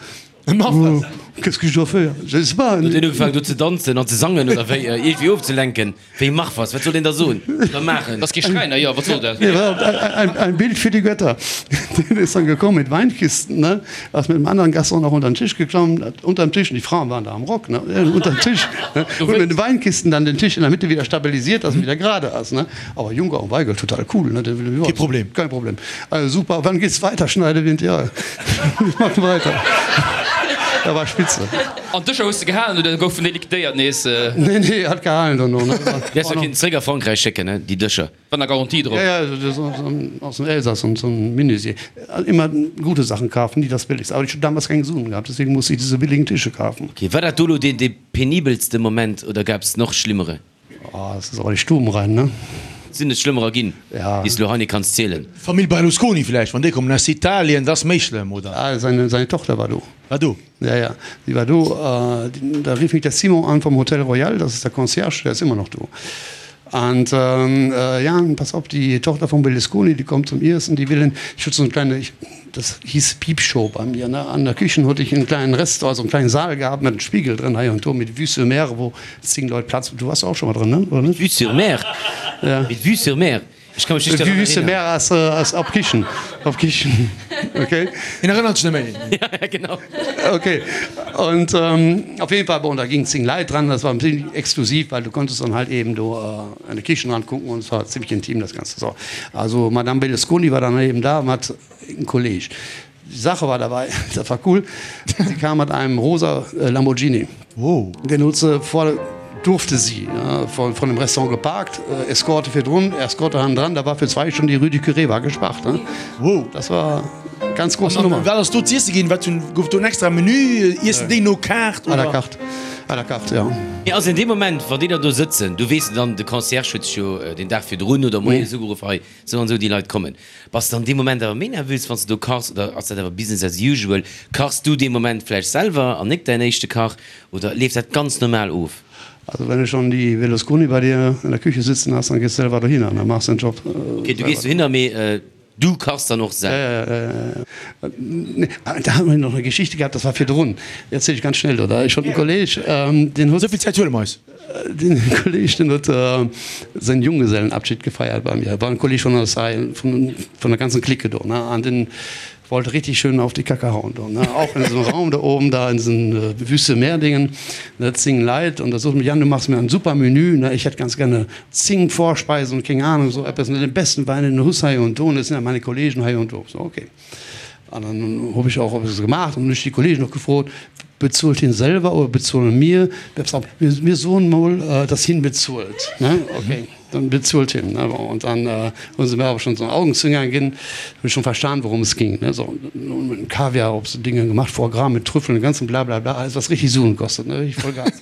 Mach was. Qu'est-ce que je dois faire? Je sais pas. Huet een ugefaangen do ze danzen an ze sangen oder wéi? Iergendwéi ofzelenken. Wéi mach was? Wat soll een da soen oder maachen? Ass kee Schräiner, jo, wat soll dat? Ein, ein Bild für die Götter. Den ist dann gekommen mit Weinkisten, ne? Ass mit einem anderen Gast auch noch unter den Tisch geklommen, hat unterm Tisch, und die Frauen waren da am Rock, ne? Unterm Tisch, ne? Und mit den Weinkisten dann den Tisch in der Mitte wieder stabilisiert, dass er wieder gerade ass, ne? Aber Juncker und Weigel, total cool, ne? Kein Problem. Kein Problem. Also super, wann geht's weiter, Schneidewind? Ja, wir machen weiter. Da war spitze. An d'Dëscher hues de gehalen oder goufen déi liquidéiert nees? Nee, nee, hat gehalen dono. Déi häss de kinnten zréck a Frankräich schécken, ne, déi Dëscher. War na Garantie drop? Ja, ja, aus dem Elsass, so ein Menuisier. Immer gute Sachen kaufen, nie das billigste. Aber ich hab damals keng Suen gehabt, deswegen musste ich diese billigen Tische kaufen. Okay, war dat do lo deen dee penibelste Moment oder gab's noch schlimmere? Oh, das ist awer déi Stubenrein, ne? Sinn et schlëmmerer ginn, Ja. déi s de lo hei net kanns zielen? Famill Berlusconi vläicht, wann déi kommen aus Italien, dat ass méi schlëmm, oder? Ah, seine, seine Tochter war do. War do? Ja, ja, sie war do. Da rief mich der Simon an vom Hotel Royal, das ist der Concierge, der ist immer noch do. Und ja, pass op, die Tochter vom Berlusconi, die kommt zum Iessen, die will en, ich hatte so eine kleine, ich, das hieß Piepshow bei mir, ne, an der Küchen hatte ich einen kleinen Restaurant, also einen kleinen Saal gehabt mit einem Spiegel drin, hei und do, mit Vue sur Mer, wo 10 Leit Platz, du warst auch schon mal drin, ne, oder net? Vue sur Mer? Ja. Mit Vue sur Mer? Ech ka mech nicht daran Vue sur erinnern. Mer ass, ass op Kichen, op Kichen, okay. Hien erënnert sech net méi. Ja, ja, genau. Okay, und ähm, auf jeden Fall, bon, da gingen 10 Leit dran, das war ziemlich exklusiv, weil du konntest dann halt eben do äh, an de Kichen ran gucken und es war ziemlich intim das Ganze. So. Also Madame Berlusconi war dann eben da und hat einen Kolleg. Die Sache war dabei, das war cool, sie kam mit einem rosa äh, Lamborghini. Oh. Den huet se vor, durfte sie, ja, von, von dem Restaurant geparkt, äh, Eskorte virdrun, Eskorte hannendran, da war für zwei Stunden die Rue du Curé war gespaart. Ne? Wow. Das war ganz große An Nummer. wat ass do z'iesse ginn? Wat hunn, gouf do en extra Menü? Iessen déi no Kaart À la oder? carte, à la carte, ja. Mee also in deem Moment, wann déi da do sëtzen, du weess dann, de Concierge huet sech jo den Dag virdrun oder moies ugeruff, hei sou an sou déi Leit kommen. Bass de an deem Moment awer méi nervös, wann s de do kachs, oder ass dat awer Business as usual? Kachs du dee Moment vläicht selwer an nik däin éischte Kach, oder leeft dat ganz normal of? Also wenn du schon die Berlusconi bei dir in der Küche sitzen hast, dann gehst du selber dohinner, dann machst du den Job Okay, du gees selber. dohinner, mee du kachs dann och selwer? Ja, ja, ja, ja, ja. Nee, da haben wir noch eine Geschichte gehabt, das war virdrun. Erzähl ich ganz schnell, oder? Ech hott en Kolleg, deen huet. Esou vill Zäit huele mer eis. Den Kolleg den huet säin Junggesellenabschied gefeiert bei mir, war en Kolleg vun eis hei, vun vun der ganzen Clique do, ne, an den wollt richtig schön auf die Kacke hauen do, ne, auch in diesem Raum da oben da in diesen Wüste Meer Dingen, ne, 10 Leit und da sot en, Jan du machst mir ein super Menü, ne, ich hätt ganz gerne 10 Vorspeisen und keng Ahnung so eppes, ne, den besten Wein den du huss hei und do, und das sind ja meine Kollegen hei und do, so okay. An dann hab ich auch eppes gemacht und hun ech die Kollegen och gefrot, Bezuelt hien selwer oder bezuelen mir? Mir soen mol, dass hien bezuelt, ne? Okay, dann bezuelt hien, ne? Bon, und dann hu se mir awer schon so Augenzwinkern ginn, hunn ech schon verstan, worum es ging, ne? So, mit Kaviar op so Dinge gemacht, Foie gras mit Trüffeln, den ganzen Blablabla, alles was richtig Suen kostet, ne? Richtig voll Gas.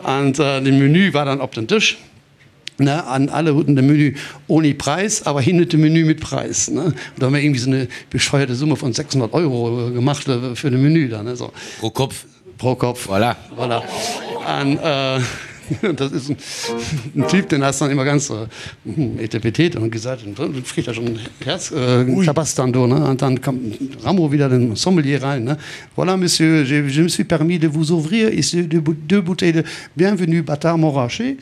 An den Menü war dann op den Tisch. Ne, an alle huten de Menü ohne Preis, aber hin huet de Menü mit Preis. Ne? Und da haben wir irgendwie so eine bescheuerte Summe von 600 Euro gemacht für de Menü dann. Ne? So. Pro Kopf. Pro Kopf. Voilà. Voilà. An äh, das ist ein, ein Typ, den hast dann immer ganz äh, etepetete und gesagt, und dann kriegt er schon Herz, äh, Klabast dann do, ne? Und dann kommt Rammo wieder den Sommelier rein, ne? Voilà, Monsieur, je, je me suis permis de vous ouvrir ici deux, deux bouteilles de Bienvenue Bâtard Montrachet.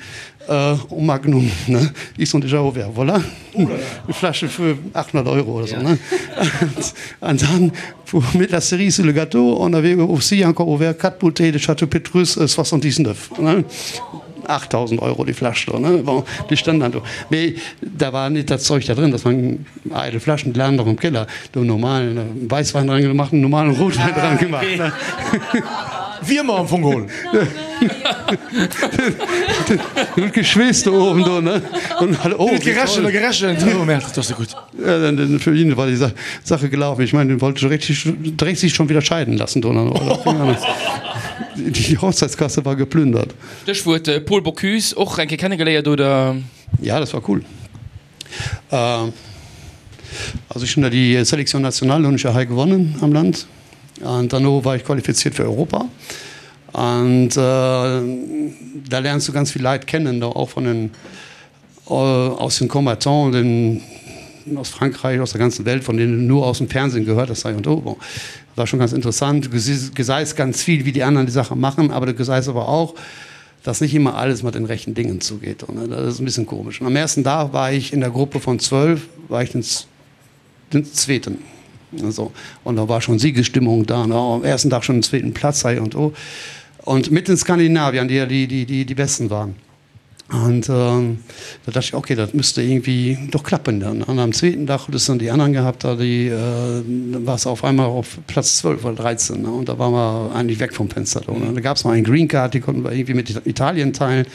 En Magnum, ne? Ils sont déjà ouverts, voilà. Une Flasche für 800 Euro oder so, ne? An dann, pour mettre la cerise sur le gâteau, on avait aussi encore ouvert quatre bouteilles de Château Petrus 79, ne? 8.000 Euro die Flasche do, ne? Bon, déi standen dann do. Mee da war net dat Zeug da drin, das waren eidel Flaschen, déi lagen nach am Keller. Do normalen Weißwein dran gemacht, normalen Rotwein dran gemacht, ne? Wiermer am Fong geholl. Den huet geschweesst do oben do, ne? Und alle, oh, Huet gerechent a gerechent. Oh Merde, dat ass net gutt. Ja, dann, dann für ihn war die Sa Sache gelaufen. Ich meine, den wollte schon richtig, direkt sich schon wieder scheiden lassen do. Die Hochzeitskasse war geplündert. Stéchwuert Paul Bocuse, och eng Kéier kennegeléiert, oder? Ja, das war cool. Also ech hunn da déi Sélection nationale hunn ech ja hei gewonnen am Land an derno war ich qualifiziert fir Europa an da lernst du ganz vill Leit kennen, da och von den aus den Combattants, den aus Frankreich, aus der ganzen Welt, von denen du nur aus dem Fernsehen gehört hast, hei und do. Bon, war schon ganz interessant. Du gesäis ganz viel, wie die anderen die Sache machen, aber du gesäis aber auch, dass nicht immer alles mit den rechten Dingen zugeht. Und das ist ein bisschen komisch. Und am ersten Tag war ich in der Gruppe von 12, war ich den, den zweiten. Also, und da war schon Siegesstimmung da. Ne? Am ersten Tag schon den zweiten Platz hei und oh. Und mit den Skandinaviern, die ja die, die, die, die Besten waren. Und ähm, da dachte ich, okay, das müsste irgendwie doch klappen dann. Und am zweiten Tag hattest du dann die anderen gehabt, da die, äh, war es auf einmal auf Platz 12 oder 13. Ne? Und da waren wir eigentlich weg vom Fenster. Da, ne? Da gab es noch einen Green Card, die konnten wir irgendwie mit Italien teilen.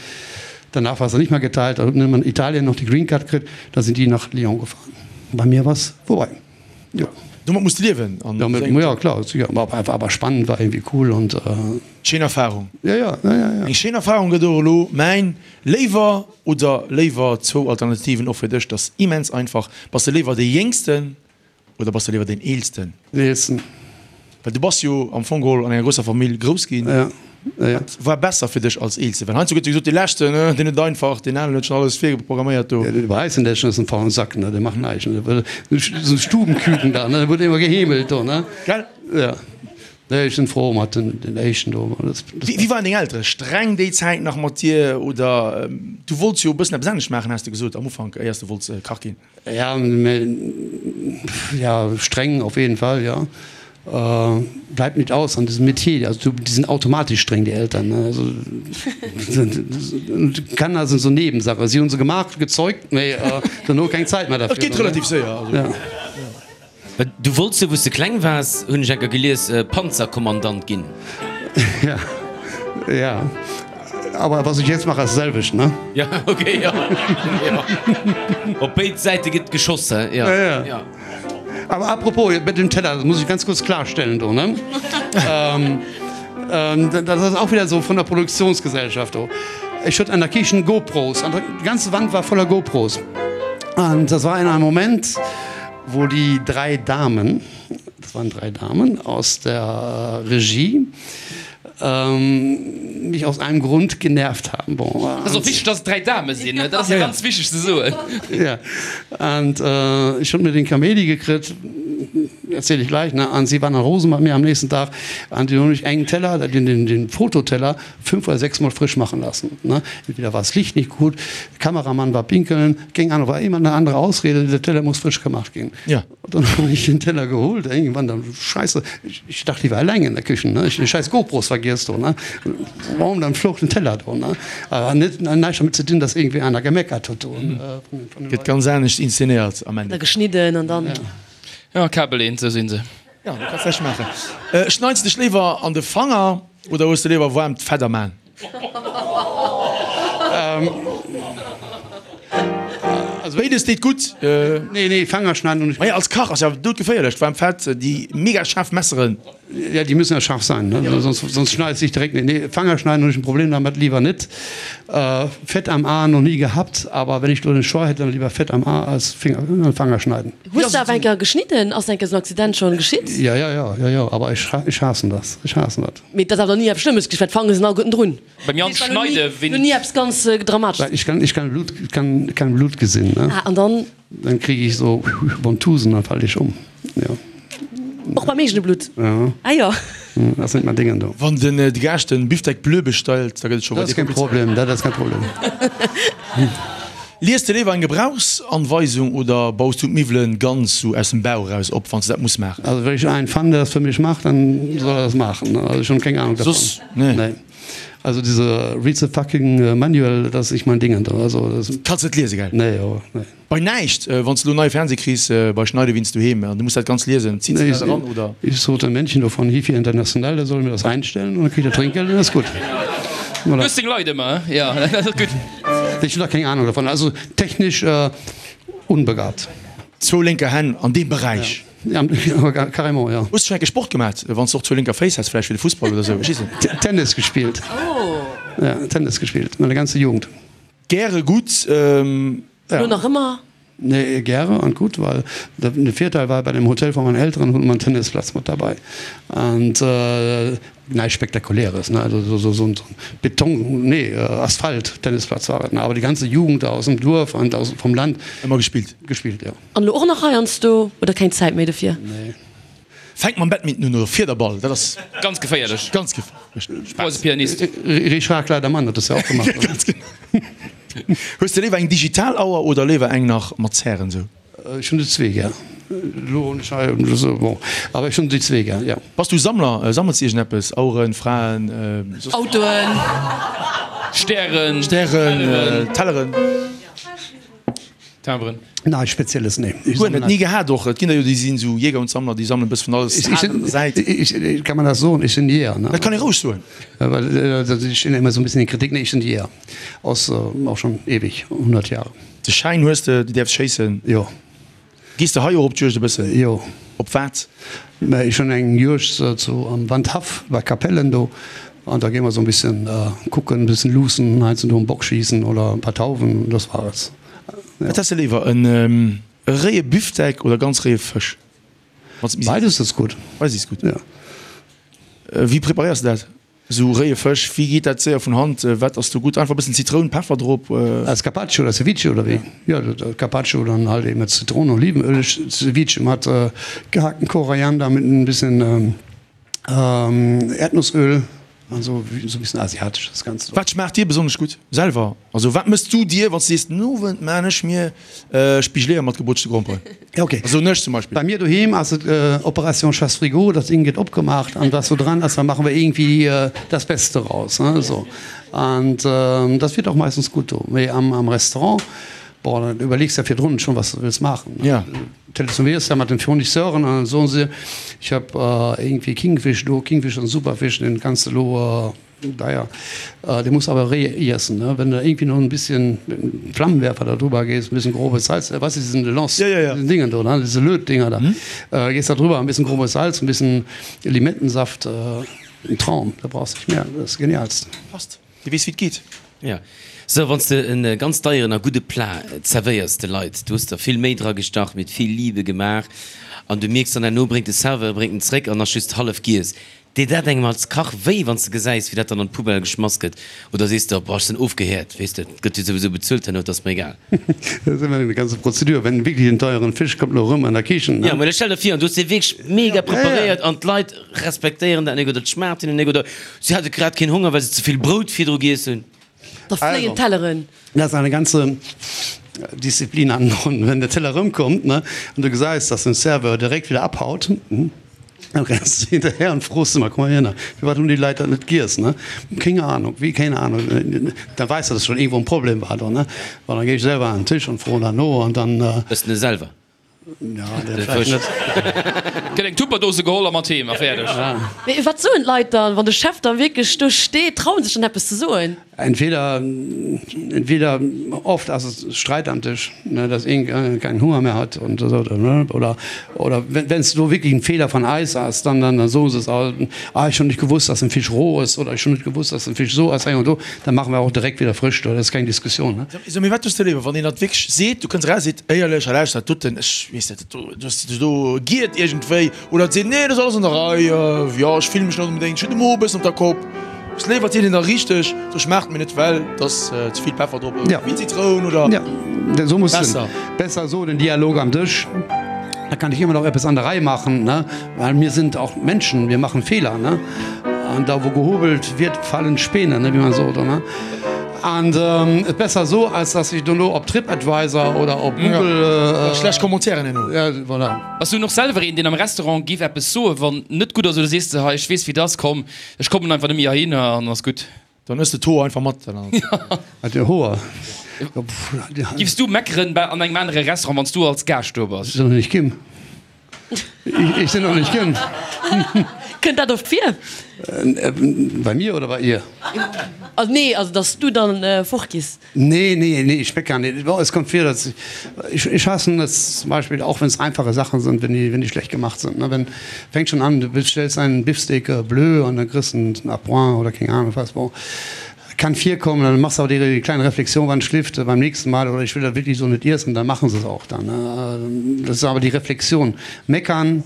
Danach war es nicht mehr geteilt. Da hat man Italien noch die Green Card gekriegt. Da sind die nach Lyon gefahren. Bei mir war es vorbei. Ja. Domat muss de liewen. An Domat, ja klar, sicher. War einfach awer spannend, war irgendwie cool und äh, Schéin Erfahrung. Ja, ja, ja, ja, ja. Eng schéin Erfahrung gëtt och elo mäin Léiwer oder léiwer zwou Alternativen och fir dech, dat ass immens einfach. Bass de léiwer dee Jéngsten oder bass de léiwer deen Eelsten? Den Eelsten. Well du bass jo am Fong geholl an enger grousser Famill grouss ginn. Ja, ja, ja. Wat war besser fir dech als Eelste? Well heiansdo gëtt jo gesot, dee Leschten, deen huet et einfach, deen aneren huet schonn alles virprogramméiert do. Ja, bei eis den Leschten ass en faulen Sack, ne, dee macht näischt, ne. Esou Stubenküken da, ne, wurd ëmmer geheemelt do, ne. Gell? Ja. Nee, ech sinn frou mat den, den Éischten do. Das, das Wéi, wéi waren deng Eltere? Streng déi Zäit nach mat dir oder du wollts jo e bëssen eppes anescht maachen, has de gesot am Ufank, éiers de wollts Kach ginn? Ja, mä, ja, streng auf jeden Fall, ja. Bleibt nicht aus an diesem Metier. Also du, die sind automatisch streng, die Eltern, ne? Also, Kanner sind so Nebensache. Sie hunn se gemacht, gezeugt, mee dono keng Zäit mehr dafür. Et geet relativ séier, also. Ja. Du wollts jo, wou s de kleng waars, hunn ech enker gelies, Panzerkommandant ginn. Ja, ja. Aber was ich jetzt mache, ass d'selwecht, ne? Ja, okay, ja. Ja. Op béid Säite gëtt geschoss, hä? Ja, ja. Ja. Aber apropos, mit dem Teller, das muss ich ganz kurz klarstellen do, ne? ähm, ähm, das ass auch wieder so von der Produktionsgesellschaft do. Ech huet an der Kichen GoPros, an die ganze Wand war voller GoPros. Und das war in einem Moment, wo die drei Damen, das waren drei Damen aus der Regie, ähm, mich aus einem Grund genervt haben. Bon, Dat ass och wichteg, dass et dräi Dame sinn, dat ass ganz wichteg ze soen. Ja, und äh, ich hunn mir den Kaméidi gekritt, erzähl ich gleich, ne? An sie waren dann rosen bei mir am nächsten Tag, an die hunn ech engen Teller, den, den, den Fototeller, fünf oder sechs Mal frisch machen lassen. Ne? Entweder war das Licht nicht gut, Kameramann war pinkeln, keng Ahnung, war immer eine andere Ausrede, der Teller muss frisch gemacht gehen. Ja. Und dann habe ich den Teller geholt, irgendwann dann, Scheiße, ich, ich dachte, ich war allein in der Küche, ne? Ich den scheiß GoPros vergiss do, ne? Warum dann flog den Teller do, ne? Aber net, näischt damit ze dinn, dass irgendwie einer gemeckert huet do. Mhm. Äh, Gëtt ganz anescht inszenéiert am Ende. Da geschnidden an dann. Ja, Kabel eent, sou sinn se. Ja, du kanns näischt maachen. Äh, schneits dech léiwer an de Fanger oder hues de léiwer waarmt Fett am Aan? Béides deet gutt. Nee, nee, Fanger schneiden hunn ech. Maja, als Kach ass ja doudgeféierlech, d'waarmt Fett, déi mega schaarf Messeren. Ja, déi müssen ja scharf sein, ne? Sonst, sonst schneidet sich direkt. Nee, Fanger schneiden hunn ech en Problem damit, lieber net. Fett am A noch nie gehabt, aber wenn ich do den Choix hätt, dann lieber Fett am A als Finger, Fanger schneiden. Hues de awer eng Kéier geschnidden? Ass eng Kéier esou en Accident schonn geschitt? Ja, ja, ja, ja, ja, aber ech, ech haassen das, ech haassen dat. Mee et ass awer nach ni eppes Schlëmmes geschitt, well d'Fange sinn alleguerten drun. Beim Jan schneide wéi. Ni eppes ganz Dramatesches. Ich kann, ich kann Blut, kann kein Blut gesinn, ne? Ah, an dann? Dann krieg ich so Ventousën, dann fall ich um, jo. Och beim eegene Blutt? Ja. Ah jo. Dat ass net mein Dingen do. Wann den de Gaascht den Bifdeck bleu bestellt, da gëtt et scho Dat ass keng Problem, dat ass kein Problem. Lies de léiwer eng Gebrauchsanweisung oder baus du d'Miwwelen ganz sou aus dem Bauch eraus op, wanns de dat muss maachen? Also wenn ich einen fand, der das für mich macht, dann soll er das machen. Also ich hun keng Ahnung davon. Soss nee. Nee. Also diese read the fucking manual, das ist nicht mein Ding. Also das Kanns net liesen, gell? Nee, jo, nee. Bei näischt, wann s de elo neie Fernseh kriss bei Schneidewinds doheem an du muss dat ganz liesen, zitt se dat eran oder? Ich sot dem Männchen do von Hifi International, der soll mir das einstellen und dann kriegt er Trinkgeld und das ist gut. Du hues deng Leit ëmmer, he? Jo, dat ass gutt. Ich hun da keng Ahnung davon, also technisch unbegabt. Zwou lénker Hänn an deem Beräich. Ja, carrément, ja. Hues du schon enke Sport gemat, wann s de och zwou lénker Féiss häss, vläicht fir de Fussball oder sou, ech weess net. Tennis gespillt. Ja, Tennis gespillt, meine ganze Jugend. Gäre gutt. Elo nach ëmmer? Nee, gäre an gutt, well de Virteil war, bei dem Hotel von meinen Eltern hunn mer en Tennisplatz mat derbei. An näischt Spektakuläres, ne, also sou sou en Beton, nee, Asphalt-Tennisplatz war et, ne, awer déi ganze Jugend da aus dem Duerf an aus vom Land. Ëmmer gespillt? Gespillt, jo. An elo och nach heiansdo oder keng Zäit méi dofir? Nee. Fänk mam Badminton un oder Fiederball, dat ass. Ganz geféierlech. Ganz geféierlech. Brauchs e Pianist. Richard Kleidermann huet das ja och gemacht. Ganz genau. Hues de léiwer eng digital Auer oder léiwer eng nach mat Zären sou? Ech hunn déi zwee gär. Elo hunn ech hei esou, bon, awer ech hunn déi zwee gär, jo. Bass du Sammler? Sammels de iergendeppes? Aueren, Fraen, soss? Autoen. Stären. Stären, Telleren. Timberen. Näischt Spezielles, nee. Ech Guer net, ni gehat och. Et ginn der jo, déi sinn esou Jäger und Sammler, déi sammelen e bësse vun alles Aalen an der Säit. Ich, kann man das soen? Ech sinn Jäger, ne? Dat kann ee roueg soen. Well ech stinn ëmmer esou e bëssen in Kritik. Nee, ech sinn Jäger. Aus, och schonn eweg, 100 Jahre. De Schäin hues de, du däerfs schéissen? Jo. Gees de hei och op d'Juegd e bëssen? Jo. Op wat? Mä ech hunn eng Juegd zu am Wandhaff bei Capellen do an da gi mer esou e bëssen kucken, e bëssen luussen, heiansdo do en Bock schiessen oder e paar Tauwen, das war es. Wat häss de léiwer, en réie Bifdeck oder ganz réie Fësch? Beides ass gutt. Beides is gutt. Wéi preparéiers de dat? Esou réie Fësch, wéi geet dat séier vun Hand? Wat ass do gutt? Einfach e bëssen Zitroun, Peffer drop? Als Carpaccio oder Ceviche oder wéi? Jo, Carpaccio dann halt eben mat Zitroun, Olivenöl, Ceviche mat gehackten Koriander mit en bisschen Erdnussöl. Also sou e bëssen asiatesch das Ganzt. Wat schmaacht dir besonnesch gutt selwer? Also wat mëss du dir, wann s du sees, den Owend maan ech mir Spigeleeër mat gebrutschte Gromperen? Ja ok. Soen ech zum Beispill. Bei mir doheem ass et Operation Chasse Frigo, das Ding gëtt opgemacht an was so dran ass, da machen wir irgendwie das Beste raus, ne, so. An das wird auch meistens gut do. Mee am am Restaurant, boah, da überlegs de virdrun schon, was du wëlls maachen, ne. Ja. Telefonéiers da mat den Fournisseuren an dann soen se, ich hab irgendwie Kingfisch do, Kingfisch ass en super Fisch, den kanns de lo deier, dee muss awer réi iessen, ne, wenn de irgendwie noch en bisschen mit dem Flammenwerfer da drüber gees, en bisschen grobes Salz, weißt du, diesen Lance, diesen Dingen do, ne, diese Lötdinger da, gees da drüber, en bisschen grobes Salz, en bisschen Limettensaft, en Traum, da brauchs nicht mehr, das ist genialst. Passt. Dir weess wéi et geet. Jo. Sou, wann s de en ganz deieren a gudde Plat zerwéiers de Leit, du hues der vill Méi dra gestach, mit vill Liebe gemaach, an du mierks dann herno bréngt de Serveur bréngt en zréck an ass just hallef giess. Deet dat engem als Kach wéi, wann s de gesäis wéi dat dann an d'Poubelle geschmass gëtt? Oder sees de, boah ech sinn ofgehäert, weess de, et gëtt jo souwisou bezuelt herno, et ass mer egal. Dat ass ëmmer eng ganze Prozedur, wenn wierklech en deieren Fisch kommt lo erëm an der Kichen, ne? Jo, mä stell der vir, an du hues dee wierklech mega preparéiert an d'Leit respektéieren dat nek oder et schmaacht hinnen nek oder si hate grad keen Honger well se ze vill Brout virdru giess hunn. Da fléien d'Telleren. Dat ass eine ganze Disziplin an wenn der Teller erëmkommt, ne, an du gesäis, dass den Serveur direkt wieder abhaut, dann renns du hinterher an froos ëmmer, komm mal hierner, firwat hunn déi Leit dat net giess, ne? Keng Ahnung, wéi keng Ahnung? Da weess de, dass schon iergendwou en Problem war do, ne? Bon, dann géi ech selwer an den Tisch an froen dann no an dann. Ëss en e selwer? Gëtt eng Tupperdose geholl a mat heem a fäerdeg. Mee wat soen d'Leit dann, wann de Chef da wierklech do steet? Trauen sech dann eppes ze soen? Entweder, entweder oft ass et Streit am Tisch, ne, dass een keinen Hunger mehr hat und esou, oder, oder wenn s do wierklech en Fehler von eis ass, dann, dann soen se es auch, ah ech hunn nicht gewusst, dass den Fisch roh ass oder ech hunn net gewusst, dass den Fisch esou ass, hei und do, dann machen wir auch direkt wieder frisch, do ass keng Diskussion, ne. So, mee wat hues de léiwer, wann een dat wierklech seet, du kënns eraus, seet, éierlech, hei lauschter, dat doten, ech weess net, dat do, du hues dech do giert iergendwéi, oder et seet, nee, dat ass alles an der Rei, jo, ech fillen mech net onbedéngt, ech hunn de Mo e bëssen op der Kopp. Hues léiwer, et seet een da richteg, do schmaacht mir net, well et ass ze vill Peffer drop oder ze vill Zitroun oder besser. Besser esou den Dialog am Dësch, da kann ich immer noch eppes an der Rei machen, ne, well mir sind auch Menschen, wir machen Fehler, ne, an da wou gehobelt wird, fallen Späne, ne, wéi man sot, ne. An et besser esou, als dass ech dono op Tripadvisor oder op Google. Schlecht Commentairen herno. Ja, voilà. Bass du och selwer een, deen am Restaurant giff eppes soen, wann net gutt ass, oder sees de, hei, ech weess wéi et ass, komm, ech kommen einfach net méi heihinner an ass gutt? Dann ëss de d'Hoer einfach mat. Wat, de Hoer? Giffs du meckeren bei an engem anere Restaurant, wann s du als Gaascht do bass? Ech sinn nach nicht ginn. Ech sinn nach nicht ginn. Kënnt dat oft vir? Bei mir oder bei ihr? Also nee, also dass du dann fortgees. Nee, nee, nee, ich meckere nicht. Bon, es kommt vir, dass ich, ich hasse es zum Beispiel, auch wenn es einfache Sachen sind, wenn die, wenn die schlecht gemacht sind. Ne? Wenn, fängt schon an, du bestellst einen Beefsteak bleu und dann kriegst du einen à point oder keng Ahnung was. Bon, kann virkommen, dann machst du aber die, die kleine Reflexion, wann schlift beim nächsten Mal oder ich will das wirklich so nicht essen, dann machen sie es auch dann. Ne? Das ist aber die Reflexion. Meckern,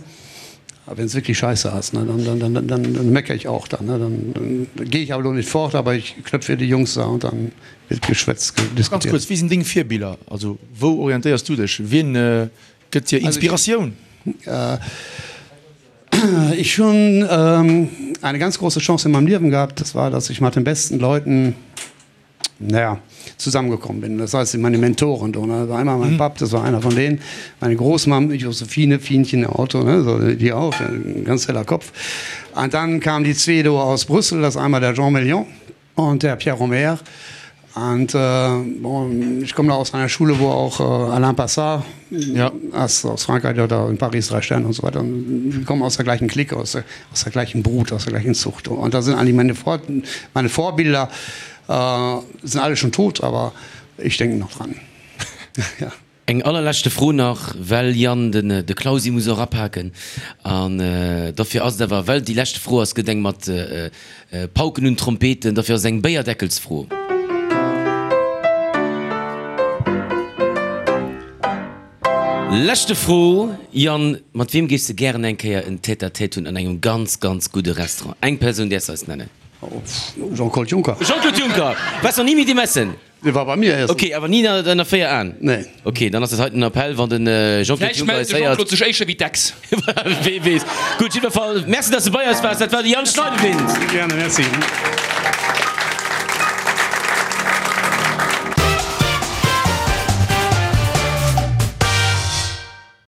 wenn es wirklich scheiße ass, ne, dann, dann, dann, dann, dann mecker ich auch dann, ne, dann, dann gehe ich aber lo nicht fort, aber ich knöpfe die Jungs da und dann wird geschwätzt, Ganz diskutiert. kuerz, Wie sinn deng Virbiller? Also wou orientéiers du dech? Wien gëtt dir Inspiratioun? Ich hunn eine ganz große Chance in meinem Liewen gehabt, das war, dass ich mat den besten Leuten naja, zusammengekommen bin. Das heißt, meine Mentoren, do, ne? Das war einmal mein Papp, das war einer von denen, meine Großmam, Josephine, Fienchen, Otto, ne? So, die auch, ein ganz heller Kopf. An dann kamen die zwee do aus Brüssel, das ist einmal der Jean Million und der Pierre Romer. Und äh, bon, ich komme da aus einer Schule, wo auch äh, Alain Passard ja. aus, aus Frankreich oder in Paris drei Sterne und so weiter. Und wir kommen aus der gleichen Clique, aus der, aus der gleichen Brut, aus der gleichen Zucht. Und da sind eigentlich meine, Vor meine Vorbilder, äh, sind alle schon tot, aber ich denke noch dran. ja. Eng allerleschte Fro nach, well Yann, den de Clausi muss och apaken an dofir ass et awer, well déi leschte Fro ass, gëtt eng mat Pauken und Trompeten, dofir ass et eng Béierdeckelsfro. Leschte Fro, Yann, mat wiem géifs de gären eng Kéier en Tête-à-tête hunn an engem ganz, ganz gudde Restaurant? Eng Persoun däerfs eis nennen. Jean-Claude Juncker. Jean-Claude Juncker! Waars nach ni mat him essen? Dee war bei mir iessen. Ok, awer ni ënner 4 Aen? Nee. Ok, dann ass dat heiten en Appell, wann den Jean-Claude Vläicht Juncker mellt eis de héiert. Jean-Claude sech éischter wéi d'Ex. Wee weess. Gutt, jiddwer Fall, Merci, dass de bei eis waars. Dat war de Yann Schneidewind. Gerne, merci.